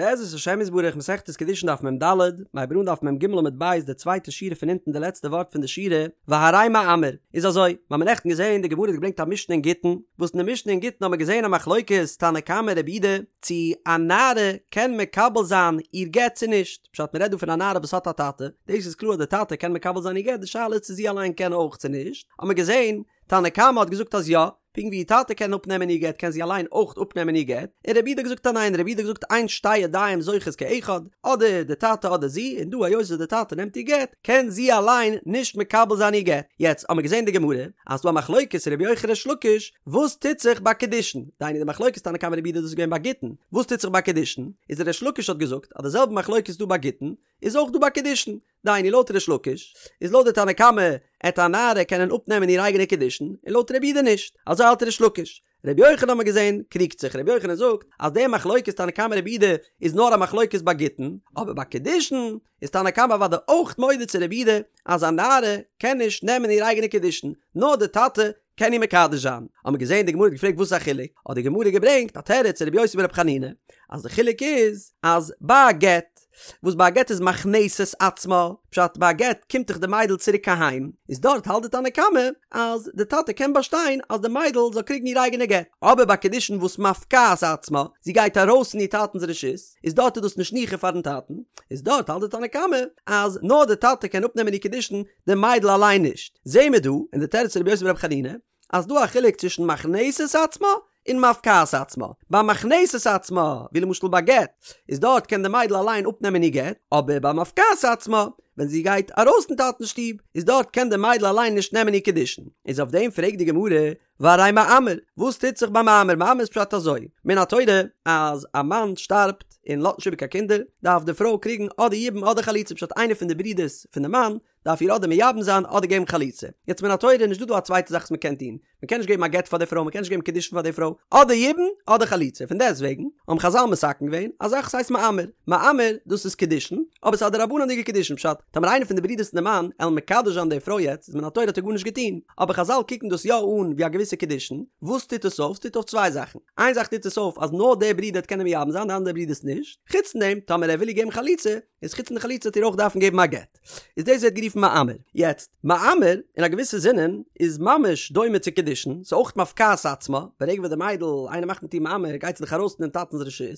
בעזרת השם יתברך מסכת קידושין דף מ"ד, מ'הייבט אן דף מ"ג עמוד ב' די צווייטע שורה פון אונטן די לעצטע ווארט פון די שורה, והרי מאמר, איז אזוי, מ'האמיר נעכטן געזען די גמרא האט געברענגט א משנה אין גיטין, וואס אין די משנה אין גיטין האמיר געזען א מחלוקת תנא קמא רבי יהודה, צו א נערה קען מקבל זיין איר גט צו נישט, פשט מ'רעדט דא פון א נערה וואס האט א טאטע, דאס איז קלאר אז די טאטע קען מקבל זיין איר גט, די שאלה איז צו זי אליין קען אויך צו נישט, האמיר געזען תנא קמא האט געזאגט אז יא, פונקט ווי איר טאטע קען אפנעמען איר גט קען זי אליין אויך אפנעמען איר גט, און רבי יהודה האט געזאגט אז ניין, רבי יהודה האט געזאגט אין שתי ידיים זוכות כאחד, אדער די טאטע אדער זי, און דא היות וואס די טאטע נעמט איר גט, קען זי אליין נישט מקבל זיין איר גט. יעצט האמיר געזען די גמרא, אז ס'דא א מחלוקת רבי יוחנן ריש לקיש, וואס טוט זיך ביי קידושין, דהיינו די מחלוקת תנא קמא רבי יהודה דאס איז געווען ביי גיטין, וואס טוט זיך ביי קידושין, איז ריש לקיש האט געזאגט אז די זעלבע מחלוקת איז דא ביי גיטין, איז אויך דא ביי קידושין, דהיינו לויט ריש לקיש איז לויט די תנא קמא עט א נערה קענען אפנעמען איר אייגענע קידושין און לויט רבי יהודה נישט, אזוי האלט ריש לקיש. רבי יוחנן האט מען געזען קריגט זיך, רבי יוחנן זאגט אז די מחלוקת תנא קמא רבי יהודה איז נאר א מחלוקת ביי גיטין, אבער ביי קידושין איז תנא קמא אוודאי אויך מודה צו רבי יהודה אז א נערה קען נישט נעמען איר אייגענע קידושין, נאר די טאטע קען איר מקדש זיין. האט מען געזען די גמרא האט געפרעגט וואס איז א חילוק, האט די גמרא געברענגט א תירוץ רבי יוסי ברבי חנינא אז די חילוק איז אז ביי א גט וואס ביי א גט איז מכנסת עצמה, פשט ביי א גט קומט דאך די מיידל צוריק אהיים, איז דארט האלט די תנא קמא אז די טאטע קען באשטיין אז די מיידל זאל קריגן איר אייגענע גט, אבער ביי קידושין וואס מפקעת עצמה, זי גייט ארויס פון איר טאטנ'ס רשות, איז דארט איז דאס נישט ניחא פארן טאטן, איז דארט האלט די תנא קמא אז נאר די טאטע קען אפנעמען איר קידושין, די מיידל אליין נישט. זעהן מיר דא אין די תירוץ פון רבי יוסי ברבי חנינא אז ס'דא א חילוק צווישן מכנסת עצמה און מפקעת עצמה. ביי מכנסת עצמה, ווי למשל ביי גט, איז דארט קען די מיידל אליין אפנעמען איר גט, אבער ביי מפקעת עצמה, ווען זי גייט ארויס פון טאטנ'ס שטוב, איז דארט קען די מיידל אליין נישט נעמען איר קידושין. איז אויף דעם פרעגט די גמרא, והרי מאמר, וואס טוט זיך ביי מאמר? מאמר איז פשט אזוי, מן התורה אז א מאן שטארבט און לאזט נישט איבער קיין קינדער, דארף די פרוי קריגן אדער יבום אדער חליצה, פשט איינער פון די ברודערס פון די מאן דארף איר אדער מייבם זיין אדער געבן חליצה. יעצט מן התורה איז נישט דא דא א צווייטע זאך וואס מען קען טון, מען קען נישט געבן א גט פאר די פרוי, מען קען נישט געבן קידושין פאר די פרוי, אדער יבום אדער חליצה, פון דעסט וועגן האבן חזל מתקן געווען א זאך וואס הייסט מאמר, מאמר דאס איז קידושין, אבער ס'איז א דרבנן'דיגע קידושין, פשט, טאמער איינער פון די ברודערס פון די מאן עלן מקדש זיין די פרוי יעצט איז מן התורה האט ער גארנישט געטון, אבער חזל קוקן דאס יא אן ווי א געוויסע קידושין, וואס טוט עס אויף? ס'טוט אויף צוויי זאכן, איין זאך טוט עס אויף אז נאר דער ברודער וועט קענען מייבם זיין די אנדערע ברודערס נישט, חוץ פון דעם טאמער ער וויל איר געבן חליצה, איז חוץ פון די חליצה וועט איר אויך דארפן געבן א גט. איז דאס ווערט גערופן מאמר. יעצט, מאמר, אין א געוויסע זינען, איז ממש דומה צו קידושין, ס'איז אויך מפקעת עצמה, ברגע וואס די מיידל, איינער מאכט מיט איר מאמר, גייט זי דאך ארויס פון דעם טאטנ'ס רשות,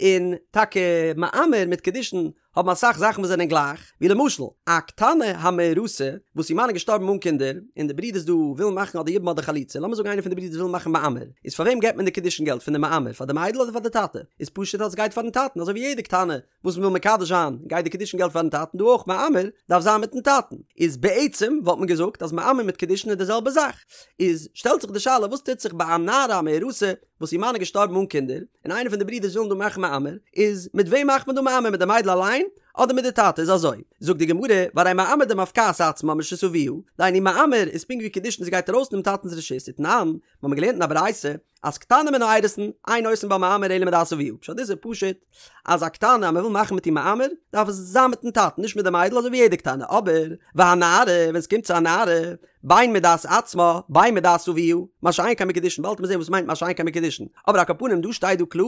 און טאקע מאמר מיט קידושין האבן אסאך זאכן וואס זענען גלייך, ווי למשל, א קטנה המאורסה, וואס איר מאן איז געשטארבן אן קינדער, און די ברודערס דא ווילן מאכן אדער יבום אדער חליצה, לאמיר זאגן איינער פון די ברודערס וויל מאכן מאמר, איז פאר וועם געבט מען די קידושין געלט פון די מאמר, פאר די מיידל אדער פאר די טאטע? איז פשוט אז עס גייט פארן טאטן, אזוי ווי יעדע קטנה וואס מ'וויל מקדש זיין, גייט די קידושין געלט פארן טאטן, דא אויך מאמר דארף זיין מיטן טאטן, איז בעצם וואלט מען געזאגט אז מאמר מיט קידושין איז די זעלבע זאך, איז שטעלט זיך די שאלה וואס טוט זיך ביי א נערה המאורסה וואס איר מאן איז געשטארבן אן קינדער, און איינער פון די ברידערס ווילן דא מאכן מאמר, איז מיט וועם מאכט מען דא מאמר מיט די מיידל אליין אדער מיט די טאטע, איז אזוי, זאגט די גמרא, והרי מאמר דמפקעת עצמה מרשות אביה, דהיינו מאמר איז פונקט ווי קידושין זי גייט ארויס פונעם טאטנ'ס רשות, ותנן, מ'האמיר געלערנט אין א ברייתא, אז קטנה מן האירוסין, אין עושין בה מאמר אלא מדעת אביה, פשט דאס איז פשוט אז א קטנה אז מ'וויל מאכן מיט איר מאמר, דארף עס זיין מיטן טאטן נישט מיט די מיידל אזוי ווי יעדע קטנה, אבער והנערה ווען עס קומט צו א נערה, בין מדעת עצמה בין מדעת אביה, מה שאין כן בקידושין, באלד וועט מען זען וואס מיינט מה שאין כן בקידושין, אבער על כל פנים דא שטייט דא קלאר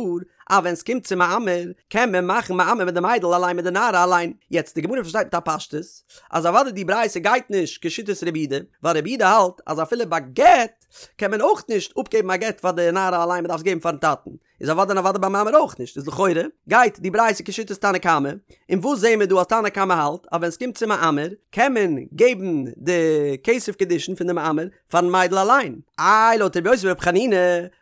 אז ווען עס קומט צו מאמר קען מען מאכן מאמר מיט די מיידל אליין מיט די נערה אליין, יעצט די גמרא פארשטייט מיט א פשטות אז אוודאי די ברייתא גייט נישט כשיטת רבי יהודה, ווייל רבי יהודה האלט אז אפילו ביי גט קען מען אויך נישט אפגעבן א גט פאר די נערה אליין מען דארף עס געבן פארן טאטן, איז אוודאי און אוודאי ביי מאמר אויך נישט, איז לכאורה גייט די ברייתא כשיטת תנא קמא, און וואס זעהן מיר דא אז תנא קמא האלט אז ווען סקומט צו מאמר קען מען געבן די כסף קידושין פון די מאמר פארן מיידל אליין. איי לויט רבי יוסי ברבי חנינא,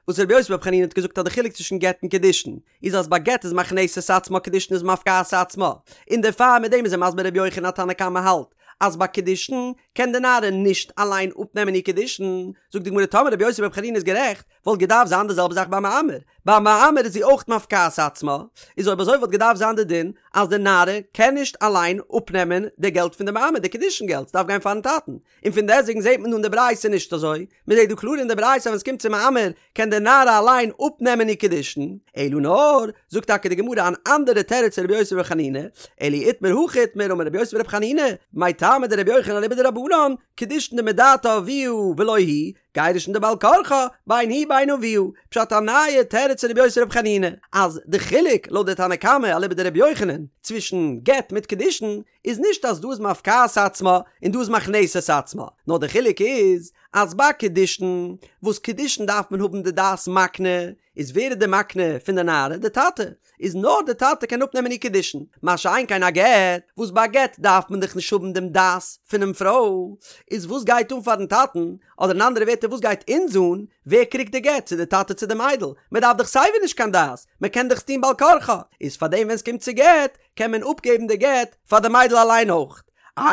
וואס רבי יוסי ברבי חנינא האט געזאגט אז די חילוק צווישן גט און קידושין איז אז ביי גט איז מכנסת עצמה קידושין איז מפקעת עצמה, און דערפאר מיט דעם איז ער מסביר רבי יוחנן אז תנא קמא האלט אז ביי קידושין קען די נערה נישט אליין אפנעמען איר קידושין, זאגט די גמרא טאמער רבי יוסי ברבי חנינא איז גערעכט וואלט געדארפט זיין די זעלבע זאך ביי מאמר, ביי מאמר איז זי אויך מפקעת עצמה, איז אויב אזוי וואלט געדארפט זיין די דין אז די נערה קען נישט אליין אפנעמען די געלט פון די מאמר, די קידושין געלט, ס'דארף גיין פארן טאטן, און פון דעסטוועגן זעט מען דא אין די ברייתא נישט אזוי, מען זעט דא קלאר אין די ברייתא אז ווען ס'קומט צו מאמר קען די נערה אליין אפנעמען איר קידושין, אלא נאר, זאגט טאקע די גמרא אן אנדערע תירוץ פון רבי יוסי ברבי חנינא, אלא אי איתמר הכי איתמר אמר רבי יוסי ברבי חנינא, מאי טעמא דרבי יוחנן אליבא דרבנן, קידושין דמדעתה אביה ולא היא. גירושין דבעל כרחה, בין היא בין אביה, פשט א נייע תירוץ פון רבי יוסי ברבי חנינא, אז די חילוק לויט די תנא קמא אליבא דרבי יוחנן צווישן גט מיט קידושין איז נישט אז דא איז מפקעת עצמה און דא איז מכנסת עצמה, נאר די חילוק איז אז ביי קידושין, וואס קידושין דארף מען האבן די דעת מקנה, איז ווער איז די מקנה פון די נערה? די טאטע. איז נאר די טאטע קען אפנעמען איר קידושין. מה שאין כן א גט, וואס ביי א גט דארף מען דאך נישט האבן דעם דעת פונעם פרוי, איז וואס גייט אן פארן טאטן, אדער אין אנדערע ווערטער וואס גייט אונז אן ווער קריגט די גט, צו די טאטע צו די מיידל, מען דארף דאך סייווי נישט קיין דעת, מען קען דאך עס טון בעל כרחה, איז פארדעם ווען עס קומט צו גט, קען מען אפגעבן די גט פאר די מיידל אליין אויך.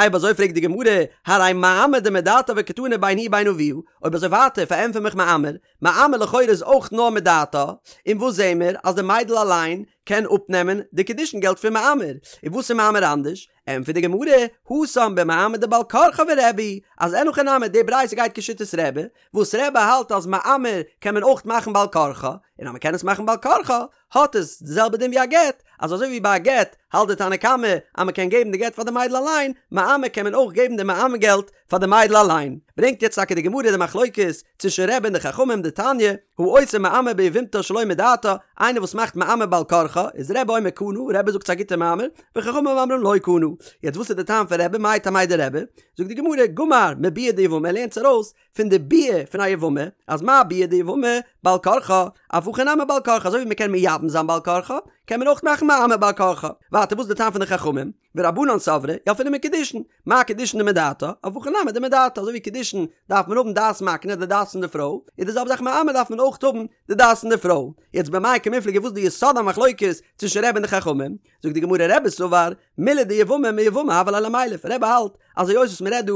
אויב אזוי פרעגט די גמרא, הרי מאמר דמדעתה וקתני בין היא בין אביה, אויב אזוי ווייטער פארענטפער מיך מאמר, מאמר לכאורה איז אויך נאר מדעתה, און וואס זעהן מיר? אז די מיידל אליין קען אפנעמען די קידושין געלט פון מאמר, און וואס איז מאמר אנדערש? ענטפערט די גמרא, התם במאמר דבעל כרחה ורבי היא, אז אין הכי נמי די ברייתא גייט כשיטת רבי, וואס רבי האלט אז מאמר קען מען אויך מאכן בעל כרחה, און אז מען קען עס מאכן בעל כרחה, האט עס די זעלבע דין ווי א גט, אז אזוי ווי ביי א גט האלט די תנא קמא אז מען קען געבן די גט פאר די מיידל אליין, מאמר קען מען אויך געבן די מאמר געלט פאר די מיידל אליין. ברענגט יעצט טאקע די גמרא די מחלוקת צווישן רבי און די חכמים דתניא, העושה מאמר ביבמתה שלא מדעתה, איינער וואס מאכט מאמר בעל כרחה, איז רבי אומר קנה, רבי זאגט ס'איז א גוטע מאמר, וחכמים אומרים לא קנה. יעצט וואס איז די טעם פון רבי, מאי טעמיה דרבי? זאגט די גמרא, גמר מביאה דיבמה ער לערנט עס ארויס פון די ביאה פון א יבמה, אז מה ביאה דיבמה בעל כרחה, אף הכא נמי בעל כרחה, אזוי ווי מ'קען מייבם זיין בעל כרחה, קען מען אויך מאכן מאמר בעל כרחה. ווייטער וואס איז די טעם פון די חכמים? ורבנן סברי ילפינן מקידושין, מה קידושין דמדעתה, אף הכא נמי דמדעתה, אזוי ווי קידושין דארף מען האבן דעת מקנה, די דעת פון די פרוי, איז די זעלבע זאך מאמר דארף מען אויך האבן די דעת פון די פרוי. יעצט במאי קמיפלגי וואס איז די יסוד המחלוקת צווישן רבי און די חכמים? זאגט די גמרא רבי סבר מילי דיבמה מיבמה הוה ליה למילף, רבי האלט אז היות וואס מ'רעדט דא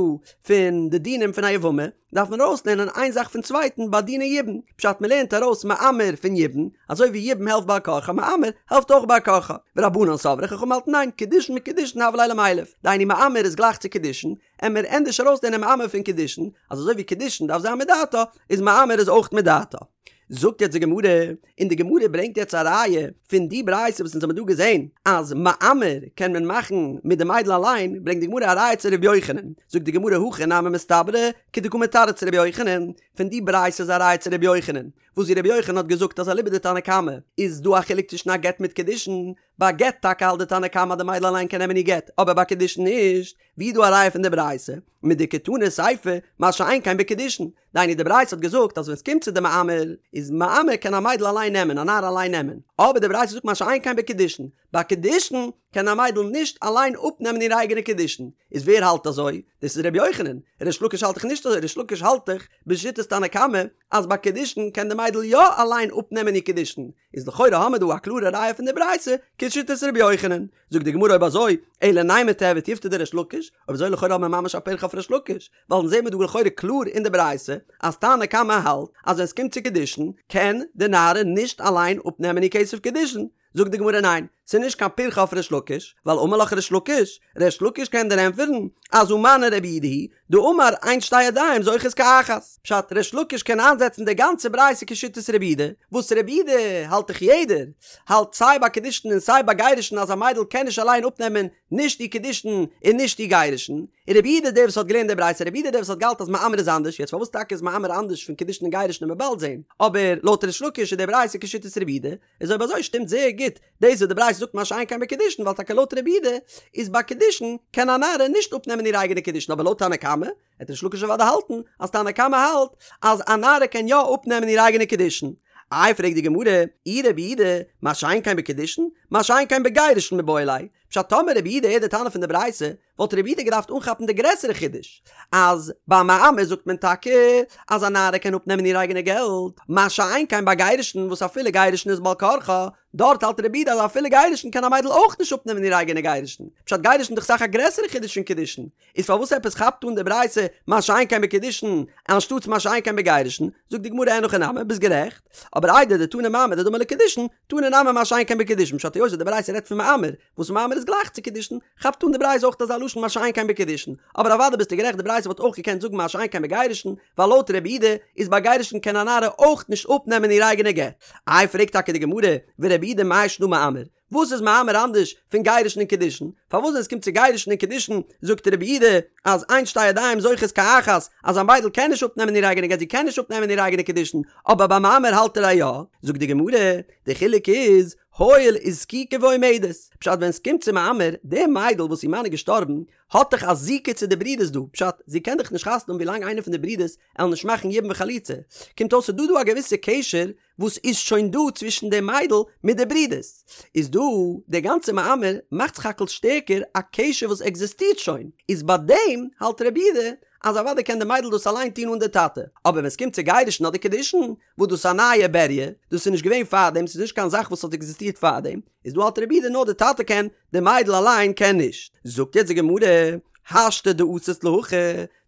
פון די דינים פון א יבמה דארף מען ארויסלערנען איין זאך פון צווייטן ביי דיני יבום, פשט מ'לערנט ארויס מאמר פון יבום, אזוי ווי יבום העלפט בעל כרחה מאמר העלפט אויך בעל כרחה, ורבנן סברי חכמים האלטן ניין קידושין מקידושין הוה ליה למילף, דהיינו מאמר איז גלייך צו קידושין, עמיר ענדערש ארויסלערנען מאמר פון קידושין, אז אזוי ווי קידושין דארף זיין מדעתה, איז מאמר איז אויך מדעתה. זאגט יעצט די גמרא, און די גמרא ברענגט יעצט א ראיה פון די ברייתא וואס אונז האבן דא געזען אז מאמר קען מען מאכן מיט די מיידל אליין, ברענגט די גמרא א ראיה צו ר' יוחנן, זאגט די גמרא הכי נמי מסתברא כדקא מתרץ ר' יוחנן, פון די ברייתא איז א ראיה צו ר' יוחנן, וואס ווי ר' יוחנן האט געזאגט אז אליבא דתנא קמא איז דא א חילוק צווישן א גט מיט קידושין, ביי גט טאקע האלט די תנא קמא אז די מיידל אליין קען נעמען איר גט, אבער ביי קידושין נישט, ווי איז דא א ראיה פון די ברייתא? מדקתני סיפא, מה שאין כן בקידושין, דהיינו די ברייתא האט געזאגט אז ווען סקומט צו די מאמר, איז מאמר קען א מיידל אליין נעמען, א נערה אליין נעמען, אבער די ברייתא זאגט מה שאין כן בקידושין, ביי קידושין קען א מיידל נישט אליין אפנעמען איר אייגענע קידושין, איז ווער האלט אזוי? דאס איז ר' יוחנן, ריש לקיש האלט דאך נישט אזוי, ריש לקיש האלט דאך בשיטת תנא קמא אז ביי קידושין קען די מיידל יא אליין אפנעמען איר קידושין, איז לכאורה האמער דא א קלארע ראיה פון די ברייתא כשיטת ר' יוחנן, זאגט די גמרא אויב אזוי אלא נימא תיהוי תיובתא דריש לקיש, אויב אזוי לכאורה האבן מיר ממש א פירכא אויף ריש לקיש, ווייל אונז זעמיר דא לכאורה קלאר אין די ברייתא אז תנא קמא האלט אז ווען סקומט צו קידושין קען די נערה נישט אליין אפנעמען איר כסף קידושין, זאגט די גמרא ניין, ס'איז נישט קיין פירכא אויף ריש לקיש, ווייל אמר לך ריש לקיש, ריש לקיש קען דיר ענטפערן אז הא מני רבי יהודה היא דאמר אין שתי ידיים זוכות כאחת, פשט ריש לקיש קען איינזעצן די גאנצע ברייתא כשיטת רבי יהודה, וואס רבי יהודה האלט דאך יעדער האלט סיי ביי קידושין און סיי ביי גירושין אז א מיידל קען נישט אליין אפנעמען נישט איר קידושין און נישט איר גירושין, און רבי יהודה דער וואס האט געלערנט די ברייתא רבי יהודה דער וואס האט געהאלטן אז מאמר איז אנדערש, יעצט פארוואס טאקע איז מאמר אנדערש פון קידושין און גירושין וועט מען באלד זעהן, אבער לויט ריש לקיש איז די ברייתא כשיטת רבי יהודה, איז אויב אזוי שטימט זייער גוט דאס וואס די ברייתא זאגט מה שאין כן בקידושין ווייל טאקע לויט רבי יהודה איז ביי קידושין קען א נערה נישט אפנעמען איר אייגענע קידושין אבער לויט תנא קמא וועט ריש לקיש אוודאי האלטן אז תנא קמא האלט אז א נערה קען יא אפנעמען איר אייגענע קידושין. איי פרעגט די גמרא, אי רבי יהודה, מה שאין כן בקידושין, מה שאין כן בגירושין מיבעי ליה, פשט טאמער רבי יהודה איז די תנא פון די ברייתא וואלט רבי יהודה געדארפט אנכאפן די גרעסערע חידוש, אז ביי מאמר זאגט מען טאקע אז א נערה קען אפנעמען איר אייגענע געלט, מה שאין כן ביי גירושין וואס אפילו גירושין איז בעל כרחה, דארט האלט רבי יהודה אז אפילו גירושין קען א מיידל אויך נישט אפנעמען איר אייגענע גירושין, פשט גירושין איז דאך אסאך א גרעסערע חידוש פון קידושין, איז פארוואס עפעס כאפט אן די ברייתא מה שאין כן בקידושין אנשטאטס מה שאין כן בגירושין, זאגט די גמרא אין הכי נמי, ביסט גערעכט, אבער איידי דתנא מאמר דדמי לקידושין, תנא נמי מה שאין כן בקידושין, פשט היות די ברייתא רעדט פון מאמר, וואס מאמר איז גלייך צו קידושין, כאפט אן די ברייתא אויך אזא לשון מה שאין כן בקידושין, אבער אוודאי ביסטו גערעכט די ברייתא וואלט אויך געקענט זאגן מה שאין כן בגירושין, ווייל לויט רבי יהודה איז ביי גירושין קען א נערה אויך נישט אפנעמען איר אייגענע גט. איי פרעגט טאקע די גמרא, ורבי יהודה מאי שנא מאמר? וואס איז מאמר אנדערש פון גירושין און קידושין? פארוואס ווען עס קומט צו גירושין און קידושין זאגט רבי יהודה אז אין שתי ידיים זוכות כאחת, אז א מיידל קען נישט אפנעמען איר אייגענע גט, זי קען נישט אפנעמען איר אייגענע קידושין, אבער ביי מאמר האלט ער אז יא? זאגט די גמרא, די חילוק איז, הואיל וזקוקה ועומדת, פשט ווען עס קומט צו מאמר, די מיידל וואס איר מאן איז געשטארבן, האט דאך א זיקה צו די ברודערס דא, פשט, זי קען דאך נישט חתונה האבן ווילאנג איינער פון די ברודערס עלן נישט מאכן יבום וחליצה, קומט אויס ס'איז דא דא א געוויסע קשר וואס איז שוין דא צווישן די מיידל מיט די ברודערס, איז דא די גאנצע מאמר מאכט סך הכל שטערקער א קשר וואס עקזיסטירט שוין, איז ביי דעם האלט רבי יהודה אז אוודאי קען די מיידל דאס אליין טון אן די טאטע, אבער ווען ס'קומט צו גירושין אדער קידושין, וואס דאס איז א נייע בריה, דאס איז נישט געווען פארדעם, ס'איז נישט קיין זאך וואס האט עקזיסטירט פארדעם, איז דא האלט רבי יהודה נאר די טאטע קען, די מיידל אליין קען נישט. זאגט יעצט די גמרא, השתא דאתית להכי,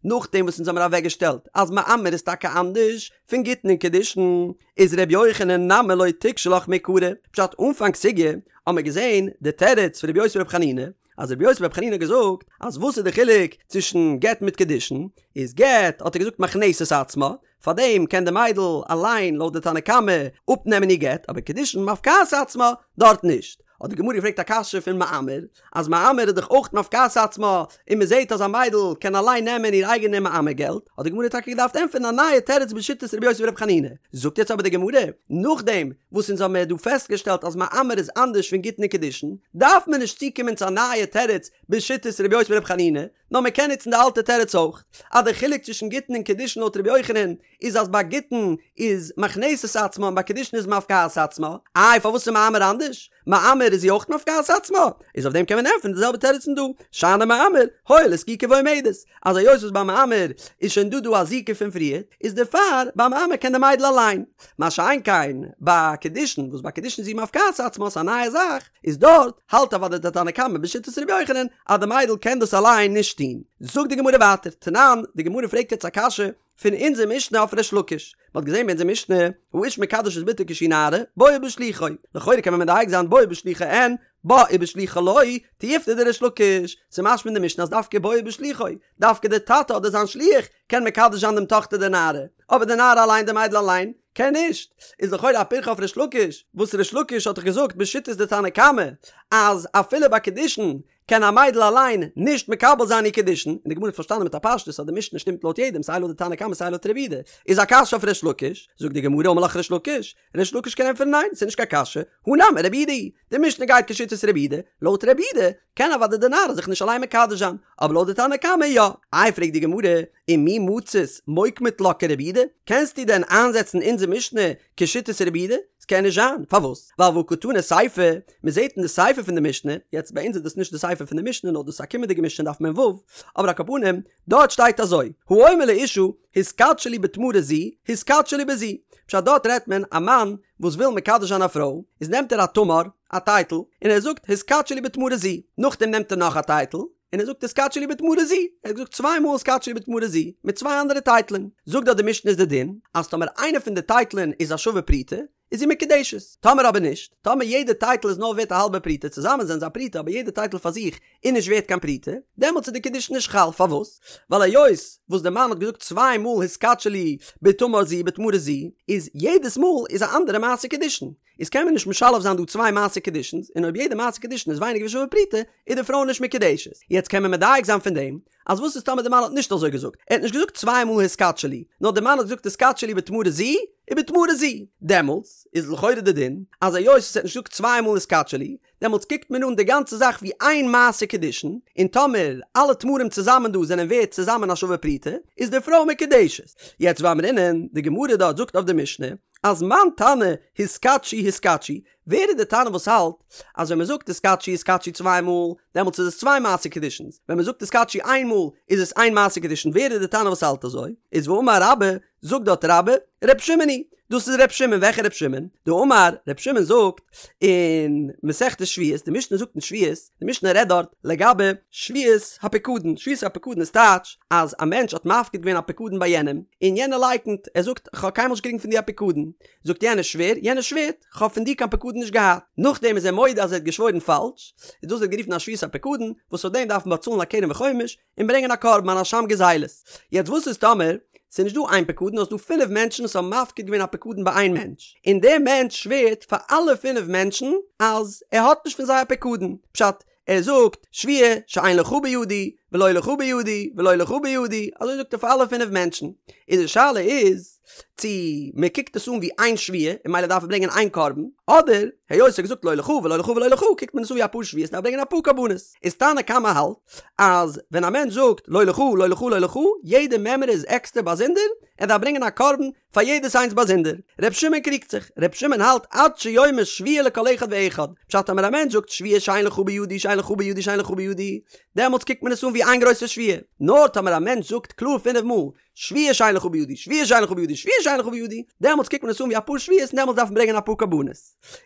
נאכדעם וואס אונז האמיר אוועקגעשטעלט אז מאמר איז טאקע אנדערש פון גיטין און קידושין, איז ר' יוחנן נמי לא תיקשי לך מעיקרא, פשט אנפאנג סוגיא האמיר געזען די תירוץ פון ר' יוסי בר' חנינא, אז ר' יוסי בר' חנינא האט געזאגט אז וואס איז די חילוק צווישן גט מיט קידושין, איז גט האט ער געזאגט מכנסת עצמה, פארדעם קען די מיידל אליין לויט די תנא קמא אפנעמען איר גט, אבער קידושין מפקעת עצמה דארט נישט. האט די גמרא געפרעגט א קשיא פון מאמר, אז מאמר איז דאך אויך מפקעת עצמה, און מען זעט אז א מיידל קען אליין נעמען איר אייגענע מאמר געלט, האט די גמרא טאקע געדארפט ענטפערן א נייע תירוץ בשיטת רבי יוסי ברבי חנינא. זאגט יעצט אבער די גמרא, נאכדעם וואס אונז האבן מיר דא פעסטגעשטעלט אז מאמר איז אנדערש פון גיטין און קידושין, דארף מען נישט צוקומען צו א נייע תירוץ בשיטת רבי יוסי ברבי חנינא, נאר מען קען נוצן די אלטע תירוץ אויך, אז די חילוק צווישן גיטין און קידושין לויט רבי יוחנן איז אז ביי גיטין איז מכנסת עצמה און ביי קידושין איז מפקעת עצמה, איי פארוואס איז מאמר אנדערש? מאמר איז זי אויך מפקעת עצמה? איז אויף דעם קען מען ענטפערן די זעלבע תירוץ פון דא, שאני מאמר, הואיל וזקוקה ועומדת, אז היות וואס ביי מאמר איז שוין דא דא א זיקה פון פריער, איז דערפאר ביי מאמר קען די מיידל אליין, מה שאין כן ביי קידושין וואס ביי קידושין איז זי מפקעת עצמה ס'איז א נייע זאך, איז דארט האלט אוודאי די תנא קמא בשיטת ר' יוחנן אז די מיידל קען דאס אליין נישט טון. זאגט די גמרא ווייטער, תנן, די גמרא פרעגט יעצט א קשיא פון אונזער משנה אויף ריש לקיש, מען האט געזען ביי אונזער משנה, האיש מקדש את בתו כשהיא נערה, בו ובשלוחו, לכאורה קען מען מדייק זיין בו ובשלוחו אין, בה ובשלוחה לא, תיובתא דריש לקיש, ס'איז משמע אין די משנה אז דווקא בו ובשלוחו, דווקא די טאטע אדער זיין שליח קען מקדש זיין דעם טאכטער די נערה, אבער די נערה אליין די מיידל אליין, קען נישט, איז לכאורה א פירכא אויף ריש לקיש, וואס ריש לקיש האט דאך געזאגט בשיטת די תנא קמא אז אפילו ביי קידושין קען א מיידל אליין נישט מקבל זיין איר קידושין, און די גמרא האט פארשטאנען מיט א פשטות אז די משנה שטימט לויט יעדעם סיי לויט די תנא קמא סיי לויט רבי יהודה, איז א קשיא אויף ריש לקיש, זאגט די גמרא אמר לך ריש לקיש, ריש לקיש קען ענטפערן ניין ס'איז נישט קיין קשיא, הא נמי רבי יהודה היא, די משנה גייט כשיטת רבי יהודה, לויט רבי יהודה קען אוודאי די נערה זיך נישט אליין מקדש זיין, אבער לויט די תנא קמא יא. איי פרעגט די גמרא, ומי מצית מוקמת לה כרבי יהודה, קענסטו דען איינזעצן אונזער משנה כשיטת רבי יהודה? ס'קען נישט זיין, פארוואס? ווייל והא קתני סיפא, מ'זעט אין די סיפא פון די משנה, יעצט ביי אונז איז דאס נישט די סיפא פון די משנה נאר דאס איז א קומענדיגע משנה דף מ"ו, אבער על כל פנים, דארט שטייט אזוי, האומר לאשה, התקדשי לי בתמרה זו, התקדשי לי בזו, פשט דארט רעדט מען א מאן וואס וויל מקדש זיין א פרוי, איז נעמט ער א תמר, א טייטל, און ער זאגט התקדשי לי בתמרה זו, נאכדעם נעמט ער נאך א טייטל, און ער זאגט התקדשי לי בתמרה זו, ער האט געזאגט צוויי מאל התקדשי לי בתמרה זו, מיט צוויי אנדערע טייטלען, זאגט דארט די משנה איז די דין, אז טאמער איינע פון די טייטלען איז א שווה פרוטה, איז זי מקודשת, טאמער אבער נישט, טאמער יעדע טייטל איז נאר ווערט א האלבע פרוטה, צוזאמען זענען זיי א פרוטה אבער יעדע טייטל פאר זיך איז נישט ווערט קיין פרוטה, דעמאלטס איז די קידושין נישט חל, פארוואס? ווייל היות וואס די מאן האט געזאגט צוויי מאל התקדשי לי בתמר זו בתמרה זו, איז יעדעס מאל איז א אנדערע מעשה קידושין, איז קען מען נישט משלב זיין דא צוויי מעשה קידושין'ס, און אויב יעדע מעשה קידושין איז ווייניגער ווי שווה פרוטה, איז די פרוי נישט מקודשת. יעצט קען מען מדייק זיין פון דעם, אז וואס איז טאמער די מאן האט נישט אזוי געזאגט, ער האט נישט געזאגט צוויי מאל התקדשי לי, נאר די מאן האט געזאגט התקדשי לי בתמרה זו ובתמרה זו, דעמאלטס איז לכאורה די דין, אז היות ער האט נישט געזאגט צוויי מאל התקדשי לי, דעמאלטס קוקט מען אן די גאנצע זאך ווי איין מעשה קידושין, און טאמער אלע תמרים צוזאמען דא זענען ווערט צוזאמען א שווה פרוטה, איז די פרוי מקודשת. יעצט ואמרינן, די גמרא דארט זאגט אויף די משנה, אז מאן תנא התקדשי התקדשי, ווער איז די תנא וואס האלט אז ווען מען זאגט התקדשי התקדשי צוויי מאל, דעמאלטס איז עס צוויי מעשה קידושין'ס, ווען מען זאגט התקדשי איין מאל איז עס איין מעשה קידושין, ווער איז די תנא וואס האלט אזוי? איז ואמר רבה, זאגט דארט רבה, ר' שמעון היא, דאס איז ר' שמעון, וועלכע ר' שמעון? דאמר, ר' שמעון זאגט אין מסכת שבועות, די משנה זאגט אין שבועות, די משנה רעדט דארט לגבי שבועת הפיקדון, שבועת הפיקדון איז טייטש אז א מענטש האט מפקיד געווען א פיקדון ביי יענעם, און יענער לייקנט, ער זאגט כ'האב קיינמאל נישט געקריגן פון דיר א פיקדון, זאגט יענער שווער, יענער שווערט, כ'האב פון דיר קיין פיקדון נישט געהאט, נאכדעם איז ער מודה אז ער האט געשוואוירן פאלש, איז דאס ווערט גערופן א שבועת הפיקדון, וואס אויף דעם דארף מען באצאלן א קרן וחומש, און ברענגען א קרבן אן אשם גזילות. יעצט וואס איז טאמער ס'איז נישט דא איין פקדון נאר ס'איז דא פינף מענטשן וואס האבן מפקיד געווען א פקדון ביי איין מענטש, און דער מענטש שווערט פאר אלע פינף מענטשן אז ער האט נישט פון זיי א פקדון, פשט, ער זאגט, שבועה שאין לך בידי, ולא לך בידי, ולא לך בידי, אזוי זאגט ער פאר אלע פינף מענטשן, און די שאלה איז, צו מען קוקט עס אן ווי איין שבועה און ממילא דארף ער ברענגען איין קרבן, אדער היות ער האט געזאגט לא לך ולא לך ולא לך קוקט מען עס אן ווי אפאר שבועות און דארף ברענגען אפאר קרבנות. איז תנא קמא האלט אז ווען א מענטש זאגט לא לך לא לך לא לך יעדע מימרא איז עקסטער באזונדער, ער דארף ברענגען א קרבן פאר יעדעס איינס באזונדער. ר' שמעון קריגט זיך, ר' שמעון האלט עד שיאמר שבועה לכל אחד ואחד, פשט טאמער א מענטש זאגט שבועה שאין לך בידי שאין לך בידי שאין לך בידי, דעמאלטס קוקט מען עס אן ווי איין גרויסע שבועה, נאר טאמער א מענטש זאגט קלאר פינף מאל שבועה שאין לך בידי, שבועה שאין לך בידי, שבועה שאין לך בידי, דעמאלטס קוקט מען עס אן ווי אפאר שבועות און דעמאלטס דארף מען ברענגען אפאר קרבנות.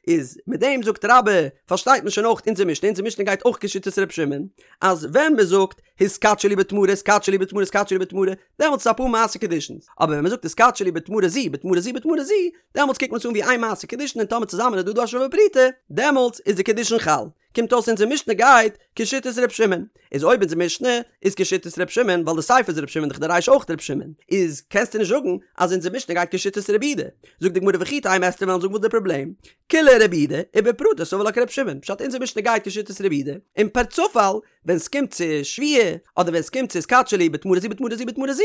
איז מיט דעם זאגט רבה, פארשטייט מען שוין אויך אונזער משנה, אונזער משנה גייט אויך כשיטת ר' שמעון, אז ווען מען זאגט התקדשי לי בתמרה התקדשי לי בתמרה התקדשי לי בתמרה, דעמאלטס איז אפאר מעשה קידושין'ס, אבער ווען מען זאגט התקדשי לי בתמרה זו, בתמרה זו, בתמרה זו, דעמאלטס קוקט מען עס אן ווי איין מעשה קידושין און טאמער צוזאמען איז דא דא א שווה פרוטה, דעמאלטס איז די קידושין חל. קומט אויס אונזער משנה גייט כשיטת ר' שמעון, איז אויב אונזער משנה איז כשיטת ר' שמעון ווייל די סיפא איז ר' שמעון דאך די רישא אויך ר' שמעון, איז קענסטו נישט זאגן אז אונזער משנה גייט כשיטת רבי יהודה, זאגט די גמרא וכי תימא וועסטו וועלן זאגן וואס די פראבלעם, כולה רבי יהודה ובפרטי סבר לה כר' שמעון, פשט אונזער משנה גייט כשיטת רבי יהודה, און פערצופאל ווען סקומט צו שבועה אדער ווען סקומט צו התקדשי לי בתמרה זו בתמרה זו בתמרה זו,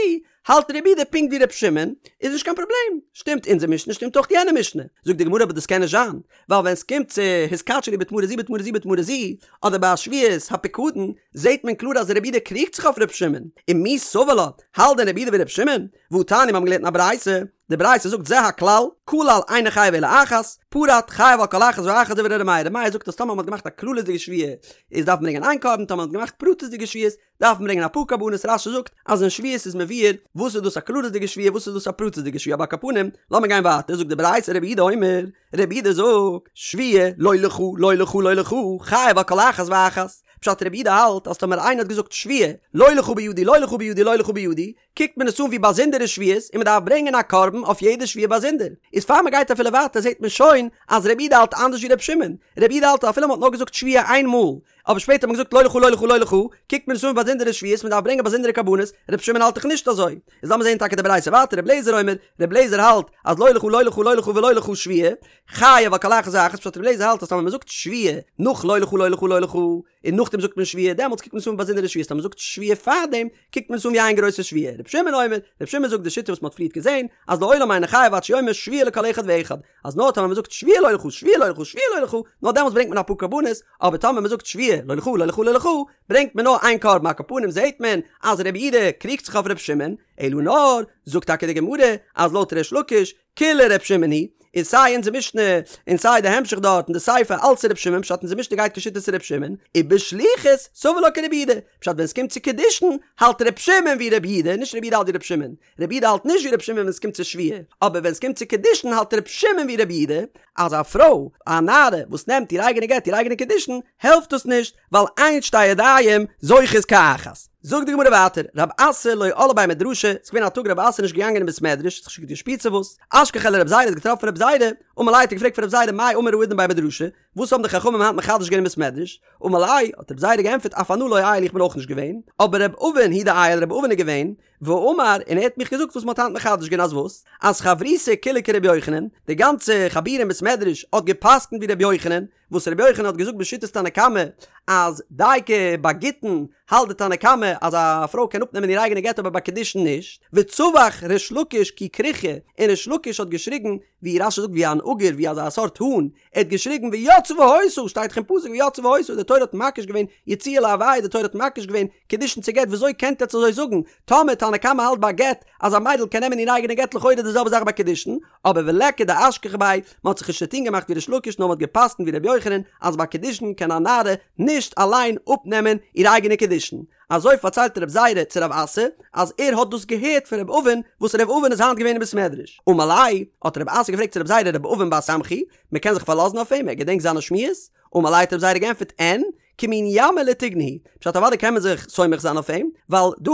האלט רבי יהודה פונקט ווי ר' שמעון, איז נישט קיין פראבלעם, שטימט אונזער משנה שטימט אויך יענע משנה, זאגט די גמרא אבער דאס קען נישט זיין, ווייל ווען סקומט צו התקדשי לי בתמרה זו בתמרה זו בתמרה זו, אדער ביי א שבועת הפיקדון, זעהט מען קלאר אז רבי יהודה קריגט זיך אויף ר' שמעון, ומי סבר לה, האלט דען רבי יהודה ווי ר' שמעון? והתניא מיר האבן געלערנט אין א ברייתא, די ברייתא זאגט זה הכלל, כלל אינו חייב אלא אחת, פרט חייב על כל אחת ואחת דברי ר' מאיר, ר' מאיר זאגט אז טאמער מ'האט געמאכט א כללית'דיגע שבועה איז דארף מען ברענגען איין קרבן, טאמער מ'האט געמאכט פרטית'דיגע שבועות דארף מען ברענגען אפאר קרבנות רש"י זאגט אז אין שבועות איז מבואר וואס איז דאס א כללית'דיגע שבועה וואס איז דאס א פרטית'דיגע שבועה אבער על כל פנים לאמיר גיין ווייטער זאגט די ברייתא רבי יהודה אומר רבי יהודה זאגט שבועה לא לך לא לך לא לך חייב על כל אחת ואחת פשט רבי יהודה האלט אז טאמער איינער האט געזאגט שבועה לא לך בידי לא לך בידי לא לך בידי קוקט מען עס אן ווי באזונדערע שבועות און מען דארף ברענגען א קרבן אויף יעדע שבועה באזונדער. איז פאר מען גייט אפילו ווייטער זעט מען שוין אז רבי יהודה האלט אנדערש ווי רבי שמעון. רבי יהודה האלט אז אפילו מען האט נאר געזאגט שבועה איין מאל, אבער שפעטער האט מען געזאגט לא לך לא לך לא לך, קוקט מען עס אן ווי באזונדערע שבועות מען דארף ברענגען באזונדערע קרבנות, רבי שמעון האלט דאך נישט אזוי. איז לאמיר זען טאקע די ברייתא ווייטער רבי אליעזר אומר, רבי אליעזר האלט אז לא לך לא לך לא לך ולא לך שבועה, חייב על כל אחת ואחת, פשט רבי אליעזר האלט אז טאמער מען זאגט שבועה נאך לא לך לא לך לא לך, און נאכדעם זאגט מען שבועה, דעמאלטס קוקט מען עס אן ווי באזונדערע שבועות, טאמער מען זאגט שבועה פארדעם, קוקט מען עס אן ווי איין גרויסע שבועה. רבי שמעון אומר, רבי שמעון זאגט די שיטה וואס מען האט פריערט געזען, אז לעולם אינו חייב עד שיאמר שבועה לכל אחד ואחד, אז נאר טאמער מען זאגט שבועה לא לך שבועה לא לך שבועה לא לך, נאר דעמאלטס ברענגט מען אפאר קרבנות, אבער טאמער מען זאגט שבועה לא לך לא לך לא לך, ברענגט מען נאר איין קרבן, על כל פנים זעט מען אז רבי יהודה קריגט זיך אויף רבי שמעון, אלא נאר, זאגט טאקע די גמרא, אז לויט ריש לקיש, כולה ר' שמעון היא, איז סיי אונזער משנה און סיי די המשך דארט און די סיפא אלץ ר' שמעון פשט אונזער משנה גייט כשיטת ר' שמעון, ובשליחות סבר לה כרבי יהודה, פשט ווען סקומט צו קידושין האלט ר' שמעון ווי ר' יהודה, נישט ר' יהודה האלט ווי ר' שמעון, ר' יהודה האלט נישט ווי ר' שמעון ווען סקומט צו שבועה, אבער ווען סקומט צו קידושין האלט ר' שמעון ווי ר' יהודה, אז א פרוי, א נערה, וואס נעמט איר אייגענע גט איר אייגענע קידושין, העלפט דאס נישט, ווייל אין שתי ידיים זוכות כאחת. זאגט די גמרא ווייטער, רב אסי לא על לבי מדרשא, ס'איז געווען א טאג רב אסי איז נישט געגאנגען אין בית מדרש, האט זיך נישט גוט געשפירט צו וואס, אשכחיה לרב זירא האט געטראפן רב זירא, אמר ליה האט ער געפרעגט פון רב זירא מאי אמור האידנא בי מדרשא, וואס האבן די חכמים היינט מחדש געווען אין בית מדרש, אמר ליה, האט רב זירא געענטפערט אף אנא לא עייל איך בין אויך נישט געווען, אבער רב אבין הוא דעייל רב אבין איז געווען, ואמר, און ער האט מיך געזאגט וואס מ'האט היינט מחדש געווען אז וואס? אז חברותא כולה כרבי יוחנן, די גאנצע חבורה אין בית מדרש האט גע'פסק'נט ווי רבי יוחנן, וואס רבי יוחנן האט געזאגט בשיטת תנא קמא אז דייקא ביי גיטין האלט די תנא קמא אז א פרוי קען אפנעמען איר אייגענע גט אבער ביי קידושין נישט, וצווח ריש לקיש כי כרוכיא, און ריש לקיש האט געשריגן ווי רש"י זאגט ווי אן עגור ווי אזא סארט האן, ער האט געשריגן ויצאה והיתה, שטייט דאך אין פסוק ויצאה והיתה, די תורה האט מקיש געווען יציאה להוויה, די תורה האט מקיש געווען קידושין צו גט, וויאזוי קענט עטץ אזוי זאגן, טאמער תנא קמא האלט ביי גט אז א מיידל קען נעמען איר אייגענע גט לכאורה די זעלבע זאך ביי קידושין, אבער וליכא דאשכח ביה, מען האט זיך נישט צוטון געמאכט ווי ריש לקיש נאר מען האט גע'פסק'נט ווי ר' יוחנן אז ביי קידושין קען א נערה נישט אליין אפנעמען איר אייגענע קידושין. אזוי פארציילט רב זירא צו רב אסי אז ער האט דאס געהערט פון רב אבין וואס רב אבין איז היינט געווען אין בית מדרש. אמר ליה, האט רב אסי געפרעגט צו רב זירא רב אבין בר סמכא היא, מען קען זיך פארלאזן אויף אים, ער געדענקט זיינע שמועות? אמר ליה האט רב זירא געענטפערט אין, כמין ימא לטיגנא הוא, פשט אוודאי קען מען זיך סומך זיין אויף אים, ווייל דא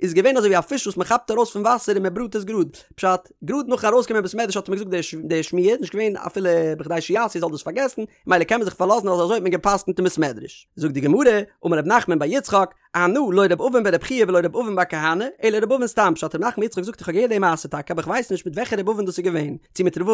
איז געווען אזוי ווי א פיש וואס מען כאפט ארויס פון וואסער און מען בראט עס גראד, פשט, גראד נאכן ארויסקומען בית מדרש האט ער מיר געזאגט די שמועה, נישט געווען אפילו בכדי שיעשו זאל דאס פארגעסן, מילא קען מען זיך פארלאזן אז אזוי האט מען גע'פסק'נט אין בית מדרש. זאגט די גמרא, אמר ר' נחמן בר יצחק, אנא לא ר' אבין בר' חייא ולא ר' אבין בר כהנא, אלא ר' אבין סתם, פשט ר' נחמן יצחק זאגט איך האב געהערט די מעשה טאקע אבער איך ווייס נישט מיט וועלכע ר' אבין דאס איז געווען, צו מיט ר'